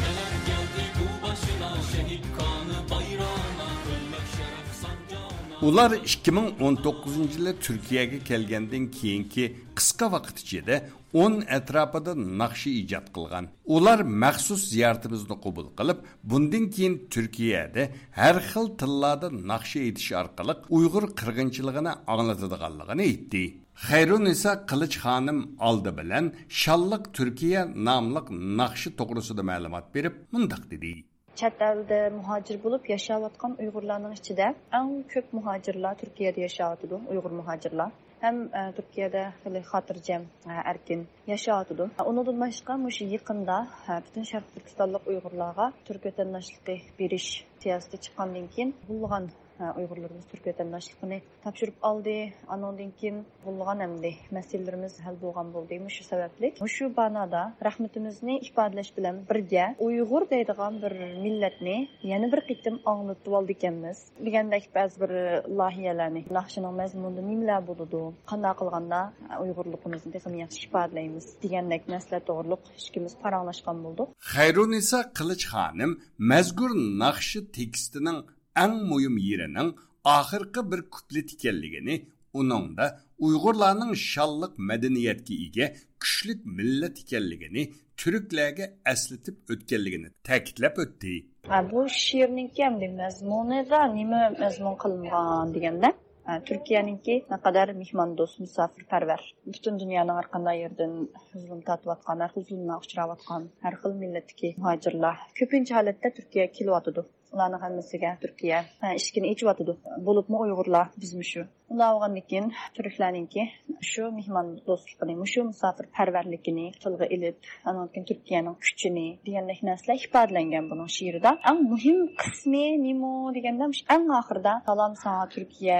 نەلەر كەلدى بۇ باشىنا، شېھىت قانى بايرىغىنا، ئۆلمەك شەرەپ سانجاغىنا. ئۇلار ئىككى مىڭ ئون توققۇزىنچى يىلى تۈركىيەگە كەلگەندىن كېيىنكى قىسقا ۋاقىت ئىچىدە ئون ئەتراپىدا ناخشا ئىجاد قىلغان. ئۇلار مەخسۇس زىيارىتىمىزنى قوبۇل قىلىپ، بۇندىن كېيىن تۈركىيەدە ھەر خىل تىللاردا ناخشا ئېيتىش ئارقىلىق ئۇيغۇر قىرغىنچىلىقىنى ئاڭلىتىدىغانلىقىنى ئېيتتى. خەيرۇننىسا قىلىچ خانىم ئالدى بىلەن شانلىق تۈركىيە ناملىق ناخشا توغرىسىدا مەلۇمات بېرىپ، مۇنداق دېدى. چەت ئەلدە مۇھاجىر بولۇپ ياشاۋاتقان ئۇيغۇرلارنىڭ ئىچىدە ئەڭ كۆپ مۇھاجىرلار تۈركىيەدە ياشاۋاتىدۇ، ئۇيغۇر مۇھاجىرلار. ھەم، ئە، تۈركىيەدە خېلى خاتىرجەم، ئە، ئەركىن ياشاۋاتىدۇ. ئۇنىڭدىن باشقا، مۇشۇ يېقىندا، ئە، پۈتۈن شەرقىي تۈركىستانلىق ئۇيغۇرلارغا تۈرك ۋەتەنداشلىقى بېرىش سىياسىتى چىققاندىن كېيىن، نۇرغۇنلىغان، ئە، ئۇيغۇرلىرىمىز تۈرك ۋەتەنداشلىقىنى تاپشۇرۇپ ئالدى. ئانىڭدىن كېيىن نۇرغۇنلىغان ئەمدى مەسىلىلىرىمىز ھەل بولغان بولدى. مۇشۇ سەۋەبلىك، مۇشۇ بانادا رەھمىتىمىزنى ئىپادىلەش بىلەن بىرگە، ئۇيغۇر دەيدىغان بىر مىللەتنى يەنە بىر قېتىم ئاڭلىتىۋالدىكەنمىز دېگەندەك بەزى بىر لايىھەلەرنى، ناخشىنىڭ مەزمۇنىدا نېمىلەر بولىدۇ، قانداق قىلغاندا ئۇيغۇرلۇقىمىزنى تېخىمۇ ياخشى ئىپادىلەيمىز دېگەندەك مەسىلە توغرۇلۇق ئىككىمىز پاراڭلاشقان بولدۇق. خەيرۇننىسا قىلىچ خانىم مەزكۇر ناخشا تېكىستىنىڭ ئەڭ مۇھىم يېرىنىڭ ئاخىرقى بىر كۇپلېت ئىكەنلىكىنى، ئۇنىڭدا ئۇيغۇرلارنىڭ شانلىق مەدەنىيەتكە ئىگە كۈچلۈك مىللەت ئىكەنلىكىنى، تۈركلەرگە ئەسلىتىپ ئۆتكەنلىكىنى تەكىتلەپ ئۆتتى. ھە، بۇ شېئىرنىڭكى ئەمدى مەزمۇنىدا نېمە مەزمۇن قىلىنغان دېگەندە، ھە، تۈركىيەنىڭكى نەقەدەر مېھماندوست، مۇساپىرپەرۋەر، پۈتۈن دۇنيانىڭ ھەر قانداق يېرىدىن زۇلۇم تارتىۋاتقان، ھەر خىل زۇلۇملارغا ئۇچراۋاتقان ھەر خىل مىللەتتىكى مۇھاجىرلار كۆپىنچە ھالەتتە تۈركىيەگە كېلىۋاتىدۇ. ئۇلارنىڭ ھەممىسىگە تۈركىيە، ھە، ئىشىكىنى ئېچىۋاتىدۇ. بولۇپمۇ ئۇيغۇرلار، بىزمۇ شۇ. ئۇنداق بولغاندىن كېيىن تۈركلەرنىڭكى شۇ مېھماندوستلۇقىنى، مۇشۇ مۇساپىرپەرۋەرلىكىنى تىلغا ئېلىپ، ئانىڭدىن كېيىن تۈركىيەنىڭ كۈچىنى دېگەندەك نەرسىلەر ئىپادىلەنگەن بۇنىڭ شېئىرىدا. ئەڭ مۇھىم قىسمى نېمە دېگەندە، مۇشۇ ئەڭ ئاخىرىدا «سالام ساڭا تۈركىيە»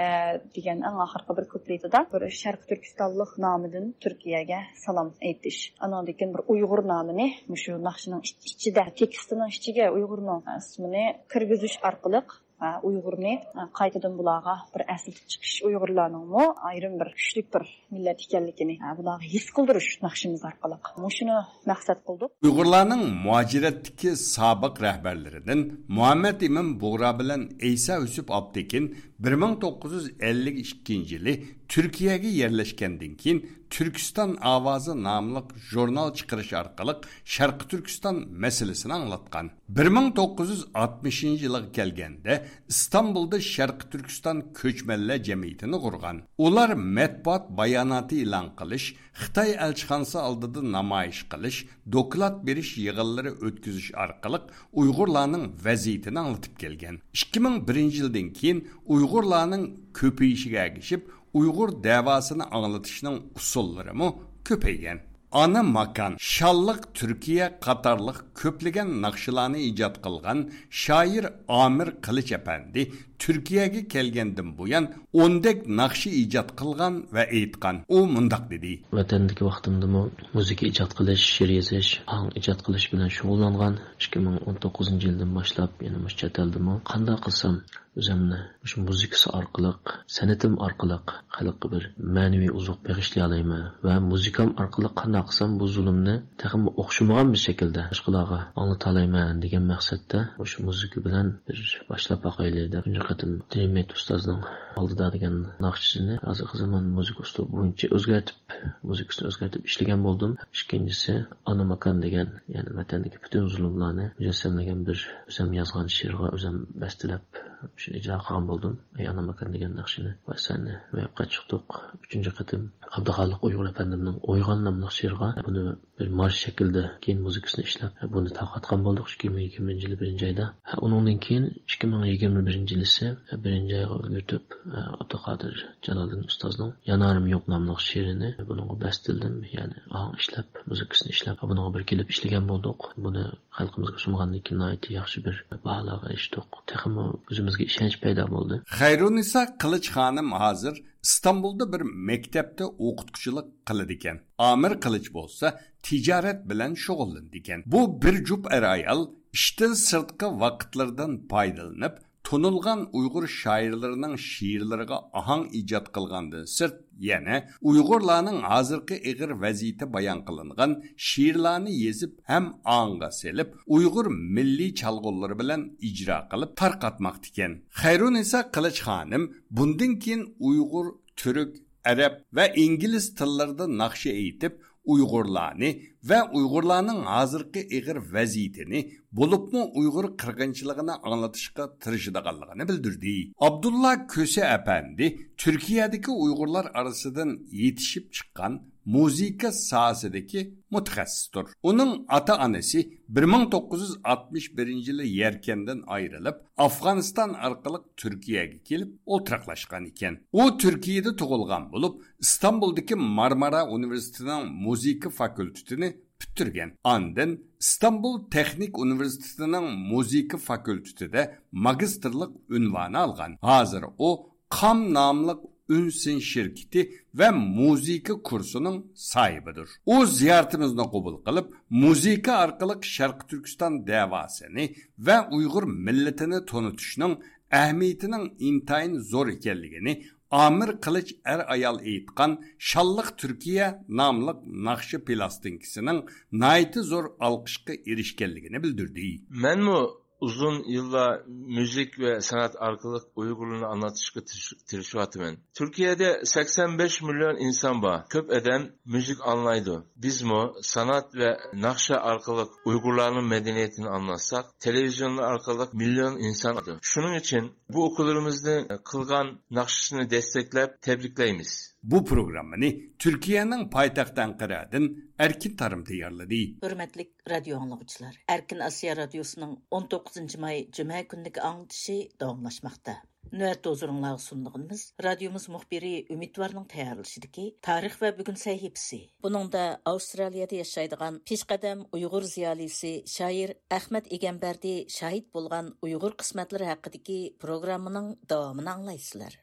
دېگەن ئەڭ ئاخىرقى بىر كۇپلېتىدا بىر شەرقىي تۈركىستانلىق نامىدىن تۈركىيەگە سالام ئېيتىش. ئانىڭدىن كېيىن بىر ئۇيغۇر نامىنى مۇشۇ ناخشىنىڭ ئىچ-، ئىچىدە، تېكىستىنىڭ ئىچىگە ئۇيغۇرنىڭ ئىسمىنى كىرگۈزۈش ئارقىلىق، ئۇيغۇرنى قايتىدىن بۇلارغا بىر ئەسلىتىپ چىقىش، ئۇيغۇرلارنىڭمۇ ئايرىم بىر كۈچلۈك بىر مىللەت ئىكەنلىكىنى بۇلارغا ھېس قىلدۇرۇش ناخشىمىز ئارقىلىق. مۇشۇنى مەقسەت قىلدۇق. ئۇيغۇرلارنىڭ مۇھاجىرەتتىكى سابىق رەھبەرلىرىدىن مۇھەممەد ئىمىن بۇغرا بىلەن ئەيسا يۈسۈپ ئاپتېكىن بىر مىڭ توققۇز يۈز ئەللىك ئىككىنچى يىلى تۈركىيەگە يەرلەشكەندىن كېيىن، تۈركىستان ئاۋازى ناملىق ژۇرنال چىقىرىش ئارقىلىق شەرقىي تۈركىستان مەسىلىسىنى ئاڭلاتقان. بىر مىڭ توققۇز يۈز ئاتمىشىنچى يىلىغا كەلگەندە، ئىستانبۇلدا شەرقىي تۈركىستان كۆچمەنلەر جەمئىيىتىنى قۇرغان. ئۇلار مەتبۇئات باياناتى ئېلان قىلىش، خىتاي ئەلچىخانىسى ئالدىدا نامايىش قىلىش، دوكلات بېرىش يىغىنلىرى ئۆتكۈزۈش ئارقىلىق ئۇيغۇرلارنىڭ ۋەزىيىتىنى ئاڭلىتىپ كەلگەن. ئىككى مىڭ بىرىنچى يىلدىن كېيىن ئۇيغۇرلارنىڭ كۆپىيىشىگە ئەگىشىپ، ئۇيغۇر دەۋاسىنى ئاڭلىتىشنىڭ ئۇسۇللىرىمۇ كۆپەيگەن. ئانا ماكان، شانلىق تۈركىيە قاتارلىق كۆپلىگەن ناخشىلارنى ئىجاد قىلغان شائىر ئامىر قىلىچ ئەپەندى تۈركىيەگە كەلگەندىن بۇيان ئوندەك ناخشا ئىجاد قىلغان ۋە ئېيتقان. ئۇ مۇنداق دېدى. ۋەتەندىكى ۋاقتىمدىمۇ مۇزىكا ئىجاد قىلىش، شېئىر يېزىش، ئاھاڭ ئىجاد قىلىش بىلەن شۇغۇللانغان. ئىككى مىڭ ئون توققۇزىنچى يىلدىن باشلاپ يەنە مۇشۇ چەت ئەلدىمۇ قانداق قىلسام ئۆزۈمنى مۇشۇ مۇزىكىسى ئارقىلىق، سەنئىتىم ئارقىلىق خەلققە بىر مەنىۋى ئوزۇق بېغىشلىيالايمەن ۋە مۇزىكام ئارقىلىق قانداق باقسام، بۇ زۇلۇمنى تېخىمۇ ئوخشىمىغان بىر شەكىلدە باشقىلارغا ئاڭلىتالايمەن دېگەن مەقسەتتە مۇشۇ مۇزىكا بىلەن بىر باشلاپ باقايلى دەپ، تۇنجى قېتىم دىمىت ئۇستازنىڭ ئالدىدا دېگەن ناخشىسىنى ھازىرقى زامان مۇزىكا ئۇسلۇبى بويىچە ئۆزگەرتىپ، مۇزىكىسىنى ئۆزگەرتىپ ئىشلىگەن بولدۇم. ئىككىنچىسى، ئانا ماكان دېگەن، يەنى ۋەتەندىكى پۈتۈن زۇلۇملارنى مۇجەسسەملىگەن بىر ئۆزۈم يازغان شېئىرغا ئۆزۈم بەستىلەپ، شۇنى ئىجرا قىلغان بولدۇم. ئەي ئانا ماكان دېگەن ناخشىنى ۋە سەننى روياپقا چىقتۇق. ئۈچىنچى قېتىم ئابدۇخالىق ئۇيغۇر ئەپەندىمنىڭ ئويغان ناملىق شېئىرىغا بۇنى بىر مارش شەكلىدە كېيىن مۇزىكىسىنى ئىشلەپ، بۇنى تارقاتقان بولدۇق ئىككى مىڭ يىگىرمىنچى يىلى بىرىنچى ئايدا. ئۇنىڭدىن كېيىن ئىككى مىڭ يىگىرمە بىرىنچى يىلىسى بىرىنچى ئايغا ئۈلگۈرتۈپ، ئابدۇقادىر جالالىدىن ئۇستازنىڭ يانارىم يوق ناملىق شېئىرىنى بۇنىڭغا بەستىلدىم، يەنى ئاھاڭ ئىشلەپ، مۇزىكىسىنى ئىشلەپ، بۇنىڭغا بىر كېلىپ ئىشلىگەن بولدۇق. بۇنى خەلقىمىزگە سۇنغاندىن كېيىن ناھايىتى ياخشى بىر باھالارغا ئېرىشتۇق. تېخىمۇ ئۆزىمىزگە ئىشەنچ پەيدا بولدى. خەيرۇننىسا قىلىچ خانىم ھازىر ئىستانبۇلدا بىر مەكتەپتە ئوقۇتقۇچىلىق قىلىدىكەن. ئامىر قىلىچ بولسا تىجارەت بىلەن شۇغۇللىنىدىكەن. بۇ بىر جۈپ ئەر-ئايال ئىشتىن سىرتقى ۋاقىتلىرىدىن پايدىلىنىپ، تونۇلغان ئۇيغۇر شائىرلىرىنىڭ شېئىرلىرىغا ئاھاڭ ئىجاد قىلغاندىن سىرت، يەنە ئۇيغۇرلارنىڭ ھازىرقى ئېغىر ۋەزىيىتى بايان قىلىنغان شېئىرلارنى يېزىپ ھەم ئاڭغا سېلىپ، ئۇيغۇر مىللىي چالغۇلىرى بىلەن ئىجرا قىلىپ تارقاتماقتىكەن. خەيرۇننىسا قىلىچ خانىم بۇندىن كېيىن ئۇيغۇر، تۈرك، ئەرەب ۋە ئىنگلىز تىللىرىدا ناخشا ئېيتىپ، ئۇيغۇرلارنى ۋە ئۇيغۇرلارنىڭ ھازىرقى ئېغىر ۋەزىيىتىنى، بولۇپمۇ ئۇيغۇر قىرغىنچىلىقىنى ئاڭلىتىشقا تىرىشىدىغانلىقىنى بىلدۈردى. ئابدۇللا كۆسە ئەپەندى تۈركىيەدىكى ئۇيغۇرلار ئارىسىدىن يېتىشىپ چىققان مۇزىكا ساھەسىدىكى مۇتەخەسسىستۇر. ئۇنىڭ ئاتا-ئانىسى بىر مىڭ توققۇز يۈز ئاتمىش بىرىنچى يىلى يەركەندىن ئايرىلىپ، ئافغانىستان ئارقىلىق تۈركىيەگە كېلىپ ئولتۇراقلاشقان ئىكەن. ئۇ تۈركىيەدە تۇغۇلغان بولۇپ، ئىستانبۇلدىكى مارمارا ئۇنىۋېرسىتېتىنىڭ مۇزىكا فاكۇلتېتىنى پۈتتۈرگەن. ئاندىن ئىستانبۇل تېخنىك ئۇنىۋېرسىتېتىنىڭ مۇزىكا فاكۇلتېتىدا ماگىستىرلىق ئۇنۋانى ئالغان. ھازىر ئۇ قام ناملىق ئۈن سىن شىركىتى ۋە مۇزىكا كۇرسىنىڭ ساھىبىدۇر. ئۇ زىيارىتىمىزنى قوبۇل قىلىپ، مۇزىكا ئارقىلىق شەرقىي تۈركىستان دەۋاسىنى ۋە ئۇيغۇر مىللىتىنى تونۇتۇشنىڭ ئەھمىيىتىنىڭ ئىنتايىن زور ئىكەنلىكىنى، ئامىر قىلىچ ئەر-ئايال ئېيتقان شانلىق تۈركىيە ناملىق ناخشا پىلاستىنكىسىنىڭ ناھايىتى زور ئالقىشقا ئېرىشكەنلىكىنى بىلدۈردى. مەنمۇ ئۇزۇن يىللار مۇزىكا ۋە سەنئەت ئارقىلىق ئۇيغۇرلارنى ئاڭلىتىشقا تىرىش-، تىرىشىۋاتىمەن. تۈركىيەدە سەكسەن بەش مىليون ئىنسان بار. كۆپ ئادەم مۇزىكا ئاڭلايدۇ. بىزمۇ سانئەت ۋە ناخشا ئارقىلىق ئۇيغۇرلارنىڭ مەدەنىيىتىنى ئاڭلاتساق، تېلېۋىزىيونلار ئارقىلىق مىليون ئىنسان ئاڭلايدۇ. شۇنىڭ ئۈچۈن بۇ ئۇكىلىرىمىزنى قىلغان ناخشىسىنى دەستەكلەپ تەبرىكلەيمىز. بۇ پروگراممىنى تۈركىيەنىڭ پايتەختى ئەنقەرەدىن ئەركىن تارىم تەييارلىدى. ھۆرمەتلىك رادىيو ئاڭلىغۇچىلار، ئەركىن ئاسىيا رادىيوسىنىڭ ئون توققۇزىنچى ماي جۈمە كۈنىدىكى ئاڭلىتىشى داۋاملاشماقتا. نۆۋەتتە ھۇزۇرۇڭلارغا سۇنىدىغىنىمىز رادىيومىز مۇخبىرى ئۈمىدۋارنىڭ تەييارلىشىدىكى تارىخ ۋە بۈگۈن سەھىپىسى. بۇنىڭدا ئاۋسترالىيەدە ياشايدىغان پېشقەدەم ئۇيغۇر زىيالىيسى شائىر ئەخمەت ئىگەمبەردى شاھىت بولغان ئۇيغۇر قىسمەتلىرى ھەققىدىكى پروگراممىنىڭ داۋامىنى ئاڭلايسىلەر.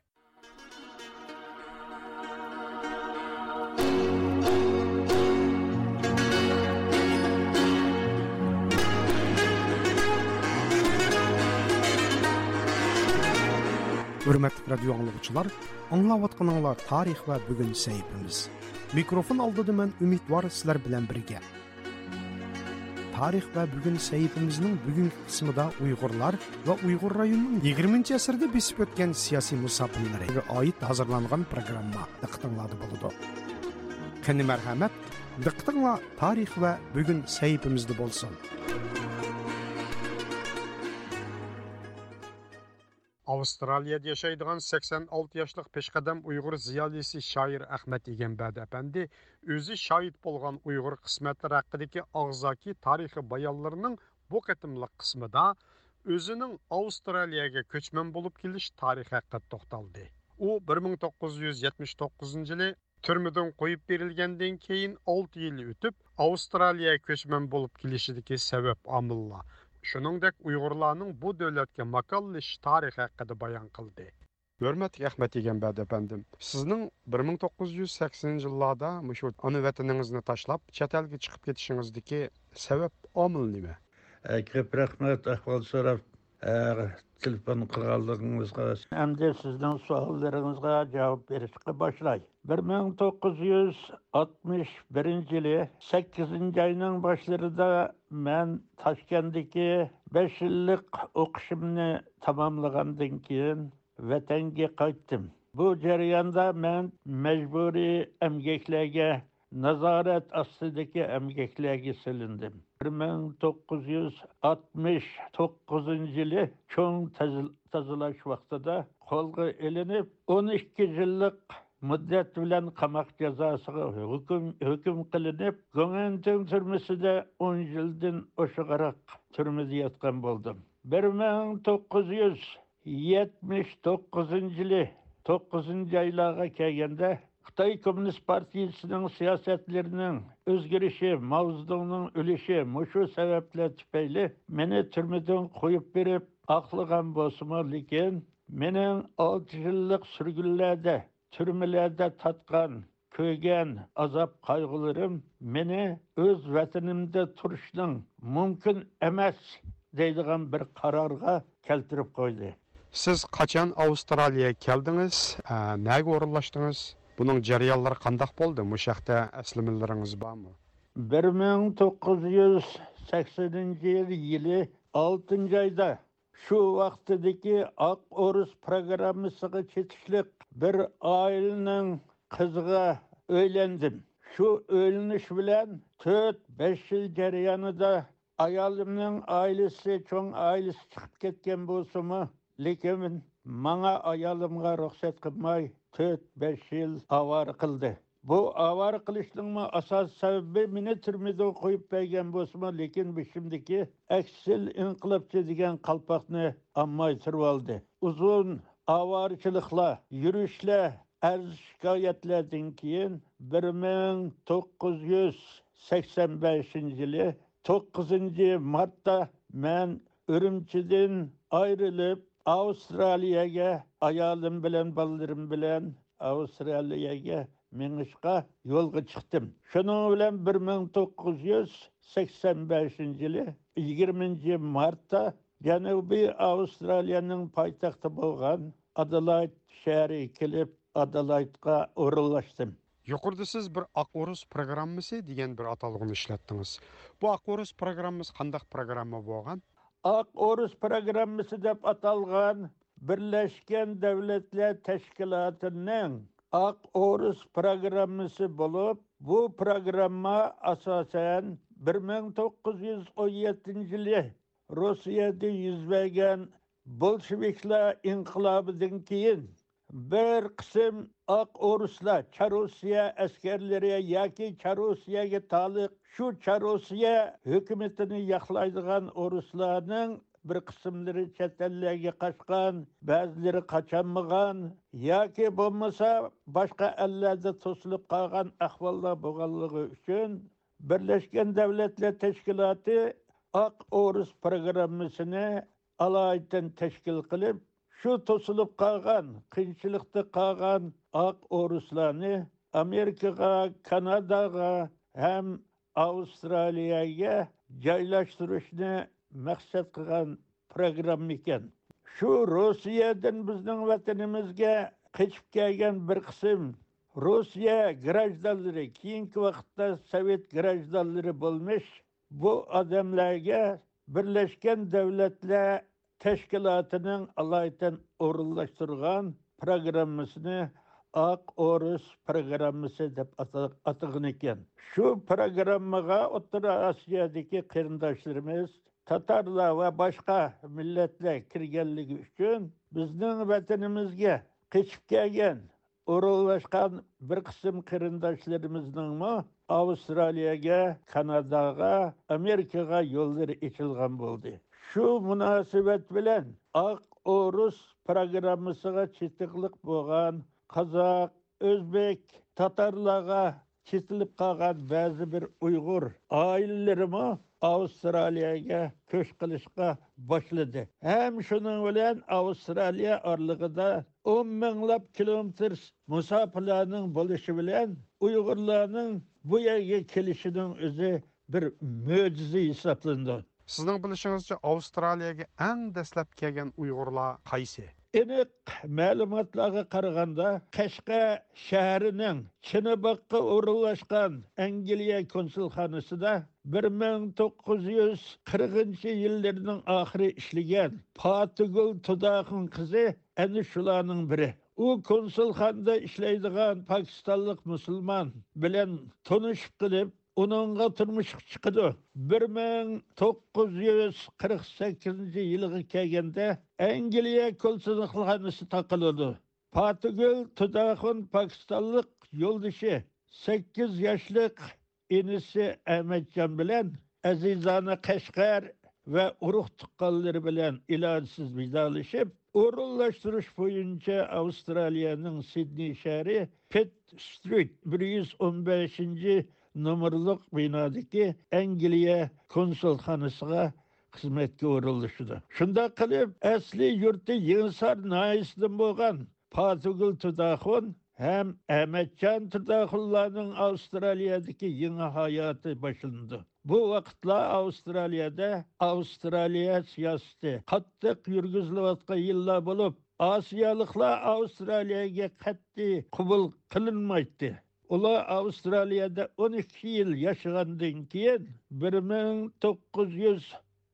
ھۆرمەتلىك رادىيو ئاڭلىغۇچىلار، ئاڭلاۋاتقىنىڭلار تارىخ ۋە بۈگۈن سەھىپىمىز. مىكروفون ئالدىدا مەن ئۈمىدۋار سىلەر بىلەن بىرگە. تارىخ ۋە بۈگۈن سەھىپىمىزنىڭ بۈگۈنكى قىسمىدا ئۇيغۇرلار ۋە ئۇيغۇر رايونىنىڭ يىگىرمىنچى ئەسىردە بېسىپ ئۆتكەن سىياسىي مۇساپىلىرىگە ئائىت ھازىرلانغان پروگرامما دىققىتىڭلاردا بولىدۇ. قېنى مەرھەمەت، دىققىتىڭلار تارىخ ۋە بۈگۈن سەھىپىمىزدە بولسۇن. ئاۋسترالىيەدە ياشايدىغان سەكسەن ئالتە ياشلىق پېشقەدەم ئۇيغۇر زىيالىيسى شائىر ئەخمەت ئىگەمبەردى ئەپەندى ئۆزى شاھىت بولغان ئۇيغۇر قىسمەتلىرى ھەققىدىكى ئاغزاكى تارىخىي بايانلىرىنىڭ بۇ قېتىملىق قىسمىدا ئۆزىنىڭ ئاۋسترالىيەگە كۆچمەن بولۇپ كېلىش تارىخى ھەققىدە توختالدى. ئۇ بىر مىڭ توققۇز يۈز يەتمىش توققۇزىنچى يىلى تۈرمىدىن قويۇپ بېرىلگەندىن كېيىن ئالتە يىل ئۆتۈپ، ئاۋسترالىيەگە كۆچمەن بولۇپ كېلىشىدىكى سەۋەب، ئامىللار، شۇنىڭدەك ئۇيغۇرلارنىڭ بۇ دۆلەتكە ماكانلىشىش تارىخى ھەققىدە بايان قىلدى. ھۆرمەتلىك ئەخمەت ئىگەمبەردى ئەپەندىم، سىزنىڭ بىر مىڭ توققۇز يۈز سەكسىنىنچى يىللاردا مۇشۇ ئانا ۋەتىنىڭىزنى تاشلاپ، چەت ئەلگە چىقىپ كېتىشىڭىزدىكى سەۋەب، ئامىل نېمە؟ ئە، كۆپ رەھمەت ئەھۋال سوراپ ئە، تېلېفون قىلغانلىقىڭىزغا. ئەمدى سىزنىڭ سوئاللىرىڭىزغا جاۋاب بېرىشقا باشلاي. بىر مىڭ توققۇز يۈز ئاتمىش بىرىنچى يىلى سەككىزىنچى ئاينىڭ باشلىرىدا مەن تاشكەنتتىكى بەش يىللىق ئوقۇشۇمنى تاماملىغاندىن كېيىن ۋەتەنگە قايتتىم. بۇ جەرياندا مەن مەجبۇرىي ئەمگەكلەرگە، نازارەت ئاستىدىكى ئەمگەكلەرگە سېلىندىم. بىر مىڭ توققۇز يۈز ئاتمىش توققۇزىنچى يىلى چوڭ تەز-، تازىلاش ۋاقتىدا قولغا ئېلىنىپ، ئون ئىككى يىللىق مۇددەت بىلەن قاماق جازاسىغا ھۆكۈم، ھۆكۈم قىلىنىپ، گۇڭئەنتىڭ تۈرمىسىدە ئون يىلدىن ئوشۇقراق تۈرمىدە ياتقان بولدۇم. بىر مىڭ توققۇز يۈز يەتمىش توققۇزىنچى يىلى توققۇزىنچى ئايلارغا كەلگەندە، خىتاي كوممۇنىست پارتىيىسىنىڭ سىياسەتلىرىنىڭ ئۆزگىرىشى، ماۋزېدۇڭنىڭ ئۆلۈشى، مۇشۇ سەۋەبلەر تۈپەيلى مېنى تۈرمىدىن قويۇپ بېرىپ ئاقلىغان بولسىمۇ، لېكىن مېنىڭ ئالتە يىللىق سۈرگۈنلەردە، تۈرمىلەردە تارتقان، كۆرگەن ئازاب-قايغۇلىرىم مېنى ئۆز ۋەتىنىمدە تۇرۇشنىڭ مۇمكىن ئەمەس دەيدىغان بىر قارارغا كەلتۈرۈپ قويدى. سىز قاچان ئاۋسترالىيەگە كەلدىڭىز؟ ئە، نەگە ئورۇنلاشتىڭىز؟ بۇنىڭ جەريانلىرى قانداق بولدى؟ مۇشۇ ھەقتە ئەسلىمىلىرىڭىز بارمۇ؟ بىر مىڭ توققۇز يۈز سەكسىنىنچى يىل، يىلى ئالتىنچى ئايدا شۇ ۋاقتىدىكى ئاق ئورۇس پروگراممىسىغا چېتىشلىق بىر ئائىلىنىڭ قىزىغا ئۆيلەندىم. شۇ ئۆيلىنىش بىلەن تۆت، بەش يىل جەريانىدا ئايالىمنىڭ ئائىلىسى، چوڭ ئائىلىسى چىقىپ كەتكەن بولسىمۇ، لېكىن ماڭا، ئايالىمغا رۇخسەت قىلماي، تۆت، بەش يىل ئاۋارە قىلدى. بۇ ئاۋارە قىلىشنىڭمۇ ئاساسىي سەۋەبى، مېنى تۈرمىدە قويۇپ بەرگەن بولسىمۇ، لېكىن بېشىمدىكى ئەكسىل ئىنقىلابچى دېگەن قالپاقنى ئالماي تۇرۇۋالدى. ئۇزۇن ئاۋارىچىلىقلار، يۈرۈشلەر، ئەرز-شىكايەتلەردىن كېيىن، بىر مىڭ توققۇز يۈز سەكسەن بەشىنچى يىلى توققۇزىنچى مارتتا مەن ئۈرۈمچىدىن ئايرىلىپ، ئاۋسترالىيەگە، ئايالىم بىلەن، بالىلىرىم بىلەن ئاۋسترالىيەگە مېڭىشقا يولغا چىقتىم. شۇنىڭ بىلەن بىر مىڭ توققۇز يۈز سەكسەن بەشىنچى يىلى يىگىرمىنچى مارتتا جەنۇبىي ئاۋسترالىيەنىڭ پايتەختى بولغان ئادېلايد شەھىرىگە كېلىپ، ئادېلايدقا ئورۇنلاشتىم. يۇقىرىدا سىز بىر ئاق ئورۇس پروگراممىسى دېگەن بىر ئاتالغۇنى ئىشلەتتىڭىز. بۇ ئاق ئورۇس پروگراممىسى قانداق پروگرامما بولغان؟ ئاق ئورۇس پروگراممىسى دەپ ئاتالغان بىرلەشكەن دەۋلەتلەر تەشكىلاتىنىڭ ئاق ئورۇس پروگراممىسى بولۇپ، بۇ پروگرامما ئاساسەن بىر مىڭ توققۇز يۈز ئون يەتتىنچى يىلى روسىيەدە يۈز بەرگەن بولشېۋىكلار ئىنقىلابىدىن كېيىن، بىر قىسىم ئاق ئورۇسلار، چارروسىيە ئەسكەرلىرى ياكى چارروسىيەگە تالىق، شۇ چارروسىيە ھۆكۈمىتىنى ياقلايدىغان ئورۇسلارنىڭ بىر قىسىملىرى چەت ئەللەرگە قاچقان، بەزىلىرى قاچالمىغان ياكى بولمىسا باشقا ئەللەردە توسۇلۇپ قالغان ئەھۋاللار بولغانلىقى ئۈچۈن، بىرلەشكەن دەۋلەتلەر تەشكىلاتى ئاق ئورۇس پروگراممىسىنى ئالايىتەن تەشكىل قىلىپ، شۇ توسۇلۇپ قالغان، قىيىنچىلىقتا قالغان ئاق ئورۇسلارنى ئامېرىكىغا، كاناداغا ھەم ئاۋسترالىيەگە جايلاشتۇرۇشنى مەقسەت قىلغان پروگرامما ئىكەن. شۇ روسىيەدىن بىزنىڭ ۋەتىنىمىزگە قېچىپ كەلگەن بىر قىسىم روسىيە گراژدانلىرى، كېيىنكى ۋاقىتتا سوۋېت گراژدانلىرى بولمىش بۇ ئادەملەرگە بىرلەشكەن دەۋلەتلەر تەشكىلاتىنىڭ ئالايىتەن ئورۇنلاشتۇرغان پروگراممىسىنى ئاق ئورۇس پروگراممىسى دەپ ئاتا-، ئاتىغان ئىكەن. شۇ پروگراممىغا ئوتتۇرا ئاسىيادىكى قېرىنداشلىرىمىز، تاتارلار ۋە باشقا مىللەتلەر كىرگەنلىكى ئۈچۈن، بىزنىڭ ۋەتىنىمىزگە قېچىپ كەلگەن ئورۇنلاشقان بىر قىسىم قېرىنداشلىرىمىزنىڭمۇ ئاۋسترالىيەگە، كاناداغا، ئامېرىكىغا يوللىرى ئېچىلغان بولدى. شۇ مۇناسىۋەت بىلەن ئاق ئورۇس پروگراممىسىغا چېتىقلىق بولغان قازاق، ئۆزبېك، تاتارلارغا چېتىلىپ قالغان بەزى بىر ئۇيغۇر ئائىلىلىرىمۇ ئاۋسترالىيەگە كۆچ قىلىشقا باشلىدى. ھەم شۇنىڭ بىلەن ئاۋسترالىيە ئارىلىقىدا ئون مىڭلاپ كىلومېتىر مۇساپىلەرنىڭ بولۇشى بىلەن ئۇيغۇرلارنىڭ بۇ يەرگە كېلىشىنىڭ ئۆزى بىر مۆجىزە ھېسابلىنىدۇ. سىزنىڭ بىلىشىڭىزچە، ئاۋسترالىيەگە ئەڭ دەسلەپ كەلگەن ئۇيغۇرلار قايسى؟ ئېنىق مەلۇماتلارغا قارىغاندا، قەشقەر شەھىرىنىڭ چىنىباغقا ئورۇنلاشقان ئەنگلىيە كونسۇلخانىسىدا بىر مىڭ توققۇز يۈز قىرىقىنچى يىللىرىنىڭ ئاخىرى ئىشلىگەن پاتىگۈل تۇداخۇن قىزى ئەنە شۇلارنىڭ بىرى. ئۇ كونسۇلخانىدا ئىشلەيدىغان پاكىستانلىق مۇسۇلمان بىلەن تونۇشۇپ قېلىپ، ئۇنىڭغا تۇرمۇشقا چىقىدۇ. بىر مىڭ توققۇز يۈز قىرىق سەككىزىنچى يىلىغا كەلگەندە، ئەنگلىيە كونسۇلخانىسى تاقىلىدۇ. پاتىگۈل تۇداخۇن پاكىستانلىق يولدىشى، سەككىز ياشلىق ئىنىسى ئەمەتجان بىلەن ئەزىزانە قەشقەر ۋە ئۇرۇق-تۇغقانلىرى بىلەن ئىلاجسىز ۋىدالىشىپ، ئورۇنلاشتۇرۇش بويىچە ئاۋسترالىيەنىڭ سىدنېي شەھىرى پىت سترىت بىر يۈز ئون بەشىنچى نومۇرلۇق بىنادىكى ئەنگلىيە كونسۇلخانىسىغا خىزمەتكە ئورۇنلىشىدۇ. شۇنداق قىلىپ، ئەسلى يۇرتى يېڭىسار ناھىيەسىدىن بولغان پاتىگۈل تۇداخۇن ھەم ئەمەتجان تۇداخۇنلارنىڭ ئاۋسترالىيەدىكى يېڭى ھاياتى باشلىنىدۇ. بۇ ۋاقىتلار ئاۋسترالىيەدە ئاۋسترالىيە سىياسىتى قاتتىق يۈرگۈزۈلۈۋاتقان يىللار بولۇپ، ئاسىيالىقلار ئاۋسترالىيەگە قەتئىي قوبۇل قىلىنمايتتى. ئۇلار ئاۋسترالىيەدە ئون ئىككى يىل ياشىغاندىن كېيىن، بىر مىڭ توققۇز يۈز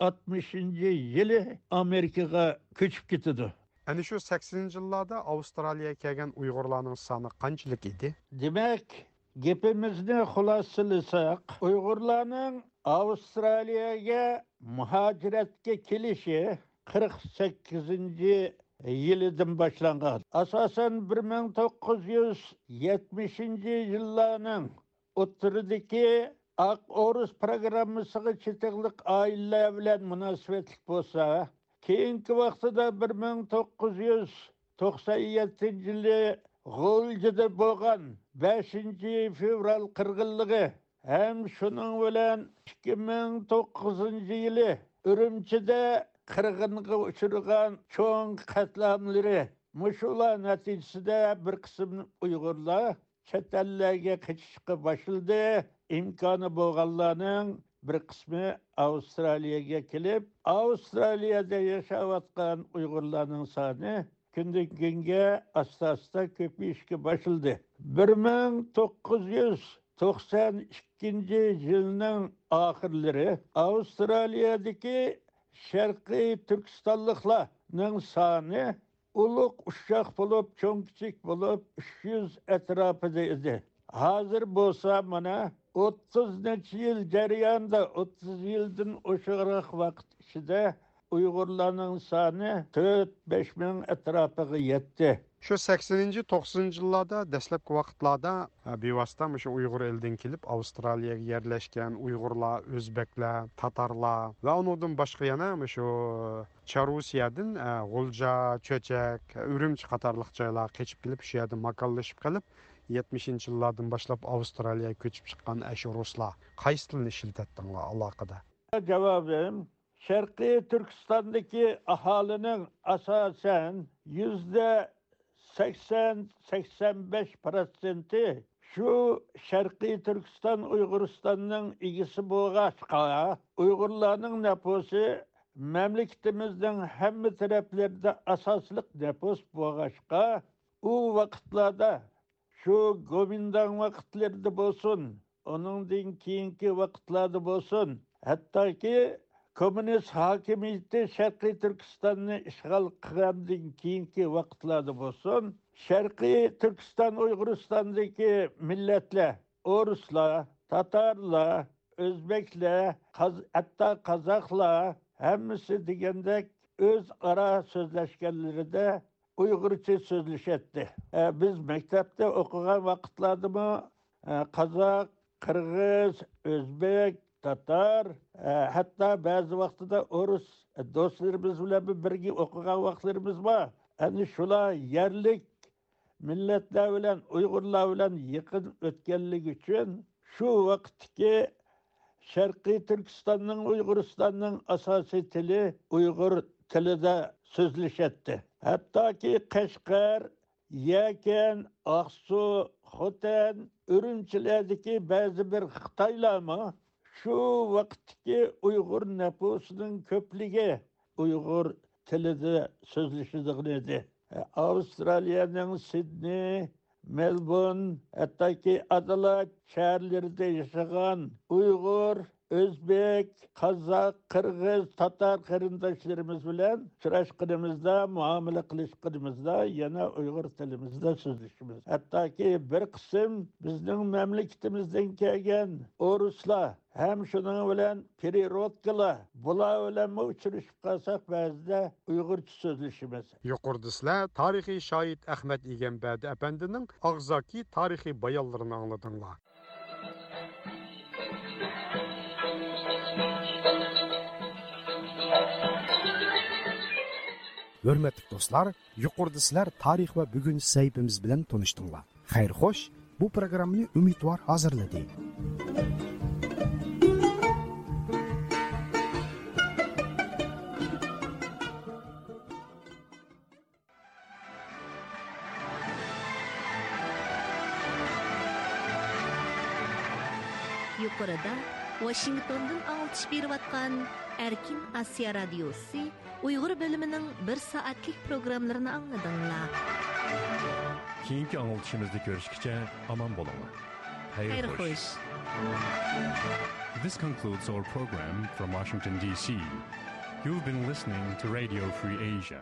ئاتمىشىنچى يىلى ئامېرىكىغا كۆچۈپ كېتىدۇ. ئەنە شۇ سەكسىنىنچى يىللاردا ئاۋسترالىيەگە كەلگەن ئۇيغۇرلارنىڭ سانى قانچىلىك ئىدى؟ دېمەك، گېپىمىزنى خۇلاسىلىساق، ئۇيغۇرلارنىڭ ئاۋسترالىيەگە مۇھاجىرەتكە كېلىشى قىرىق سەككىزىنچى يىلىدىن باشلانغان. ئاساسەن، بىر مىڭ توققۇز يۈز يەتمىشىنچى يىللارنىڭ ئوتتۇرىدىكى ئاق ئورۇس پىروگراممىسىغا چېتىقلىق ئائىلىلەر بىلەن مۇناسىۋەتلىك بولسا، كېيىنكى ۋاقتىدا بىر مىڭ توققۇز يۈز توقسان يەتتىنچى يىلى غۇلجىدا بولغان بەشىنچى فېۋرال قىرغىنلىقى ھەم شۇنىڭ بىلەن ئىككى مىڭ توققۇزىنچى يىلى ئۈرۈمچىدە قىرغىنغا ئۇچرىغان چوڭ قەتلىئاملىرى، مۇشۇلار نەتىجىسىدە بىر قىسىم ئۇيغۇرلار چەت ئەللەرگە قېچىشقا باشلىدى. ئىمكانى بولغانلارنىڭ بىر قىسمى ئاۋسترالىيەگە كېلىپ، ئاۋسترالىيەدە ياشاۋاتقان ئۇيغۇرلارنىڭ سانى كۈندىن كۈنگە ئاستا-ئاستا كۆپىيىشكە باشلىدى. بىر مىڭ توققۇز يۈز توقسان ئىككىنچى يىلنىڭ ئاخىرلىرى ئاۋسترالىيەدىكى شەرقىي تۈركىستانلىقلارنىڭ سانى ئۇلۇغ ئۇششاق بولۇپ، چوڭ-كىچىك بولۇپ، ئۈچ يۈز ئەتراپىدا ئىدى. ھازىر بولسا مانا ئوتتۇز نەچچە يىل جەريانىدا، ئوتتۇز يىلدىن ئوشۇقراق ۋاقىت ئىچىدە ئۇيغۇرلارنىڭ سانى تۆت، بەش مىڭ ئەتراپىغا يەتتى. شۇ سەكسىنىنچى، توقسىنىنچى يىللاردا، دەسلەپكى ۋاقىتلاردا، ھە، بىۋاسىتە مۇشۇ ئۇيغۇر ئېلىدىن كېلىپ ئاۋسترالىيەگە يەرلەشكەن ئۇيغۇرلار، ئۆزبەكلەر، تاتارلار ۋە ئۇنىڭدىن باشقا يەنە مۇشۇ چارۇسىيەدىن، ئە، غۇلجا، چۆچەك، ئۈرۈمچى قاتارلىق جايلارغا قېچىپ كېلىپ، شۇ يەردە ماكانلىشىپ قېلىپ، يەتمىشىنچى يىللاردىن باشلاپ ئاۋسترالىيەگە كۆچۈپ چىققان ئەشۇ رۇسلار قايسى تىلنى ئىشلىتەتتىڭلار ئالاقىدە؟ جاۋابىم، شەرقىي تۈركىستاندىكى ئاھالىنىڭ ئاساسەن يۈزدە سەكسەن، سەكسەن بەش پىروتسېنتى شۇ شەرقىي تۈركىستان ئۇيغۇرىستاننىڭ ئىگىسى بولغاچقا، ئۇيغۇرلارنىڭ نەپۇسى مەملىكىتىمىزنىڭ ھەممە تەرەپلىرىدە ئاساسلىق نەپۇس بولغاچقا، ئۇ ۋاقىتلاردا شۇ گومىنداڭ ۋاقىتلىرىدا بولسۇن، ئۇنىڭدىن كېيىنكى ۋاقىتلاردا بولسۇن، ھەتتاكى كوممۇنىست ھاكىمىيىتى شەرقىي تۈركىستاننى ئىشغال قىلغاندىن كېيىنكى ۋاقىتلاردا بولسۇن، شەرقىي تۈركىستان ئۇيغۇرىستاندىكى مىللەتلەر، ئورۇسلار، تاتارلار، ئۆزبەكلەر، قاز-، ھەتتا قازاقلار ھەممىسى دېگەندەك ئۆزئارا سۆزلەشكەنلىرىدە ئۇيغۇرچە سۆزلىشەتتى. ئە، بىز مەكتەپتە ئوقۇغان ۋاقىتلاردىمۇ، ئە، قازاق، قىرغىز، ئۆزبېك، تاتار، ئە، ھەتتا بەزى ۋاقتىدا ئورۇس دوستلىرىمىز بىلەن بىرگە ئوقۇغان ۋاقىتلىرىمىز بار. ئەنە شۇلار يەرلىك مىللەتلەر بىلەن، ئۇيغۇرلار بىلەن يېقىن ئۆتكەنلىكى ئۈچۈن شۇ ۋاقىتتىكى شەرقىي تۈركىستاننىڭ، ئۇيغۇرىستاننىڭ ئاساسىي تىلى ئۇيغۇر تىلىدا سۆزلىشەتتى. ھەتتاكى قەشقەر، يەكەن، ئاقسۇ، خوتەن، ئۈرۈمچىلەردىكى بەزى بىر خىتايلارمۇ شۇ ۋاقىتتىكى ئۇيغۇر نەپۇسىنىڭ كۆپلۈكى ئۇيغۇر تىلىدا سۆزلىشىدىغان ئىدى. ئاۋسترالىيەنىڭ سىدنېي، مېلبورن، ھەتتاكى ئادېلايد شەھەرلىرىدە ياشىغان ئۇيغۇر، ئۆزبېك، قازاق، قىرغىز، تاتار قېرىنداشلىرىمىز بىلەن ئۇچراشقىنىمىزدا، مۇئامىلە قىلىشقىنىمىزدا يەنە ئۇيغۇر تىلىمىزدا سۆزلىشىمىز. ھەتتاكى بىر قىسىم بىزنىڭ مەملىكىتىمىزدىن كەلگەن ئورۇسلار ھەم شۇنىڭ بىلەن پېرېروتكىلار، بۇلار بىلەنمۇ ئۇچرىشىپ قالساق، بەزىدە ئۇيغۇرچە سۆزلىشىمىز. يۇقىرىدا سىلەر تارىخىي شاھىت ئەخمەت ئىگەمبەردى ئەپەندىنىڭ ئاغزاكى تارىخىي بايانلىرىنى ئاڭلىدىڭلار. ھۆرمەتلىك دوستلار، يۇقىرىدا سىلەر تارىخ ۋە بۈگۈن سەھىپىمىز بىلەن تونۇشتۇڭلار. خەير خوش، بۇ پروگراممىنى ئۈمىدۋار ھازىرلىدى. يۇقىرىدا ۋاشىنگتوندىن ئاڭلىتىش بېرىۋاتقان ئەركىن ئاسىيا رادىيوسى ئۇيغۇر بۆلۈمىنىڭ بىر سائەتلىك پروگراممىلىرىنى ئاڭلىدىڭلار. كېيىنكى ئاڭلىتىشىمىزدا كۆرۈشكىچە ئامان بولۇڭلار. خەير خوش. This concludes our program from Washington, D C. You've been listening to Radio Free Asia.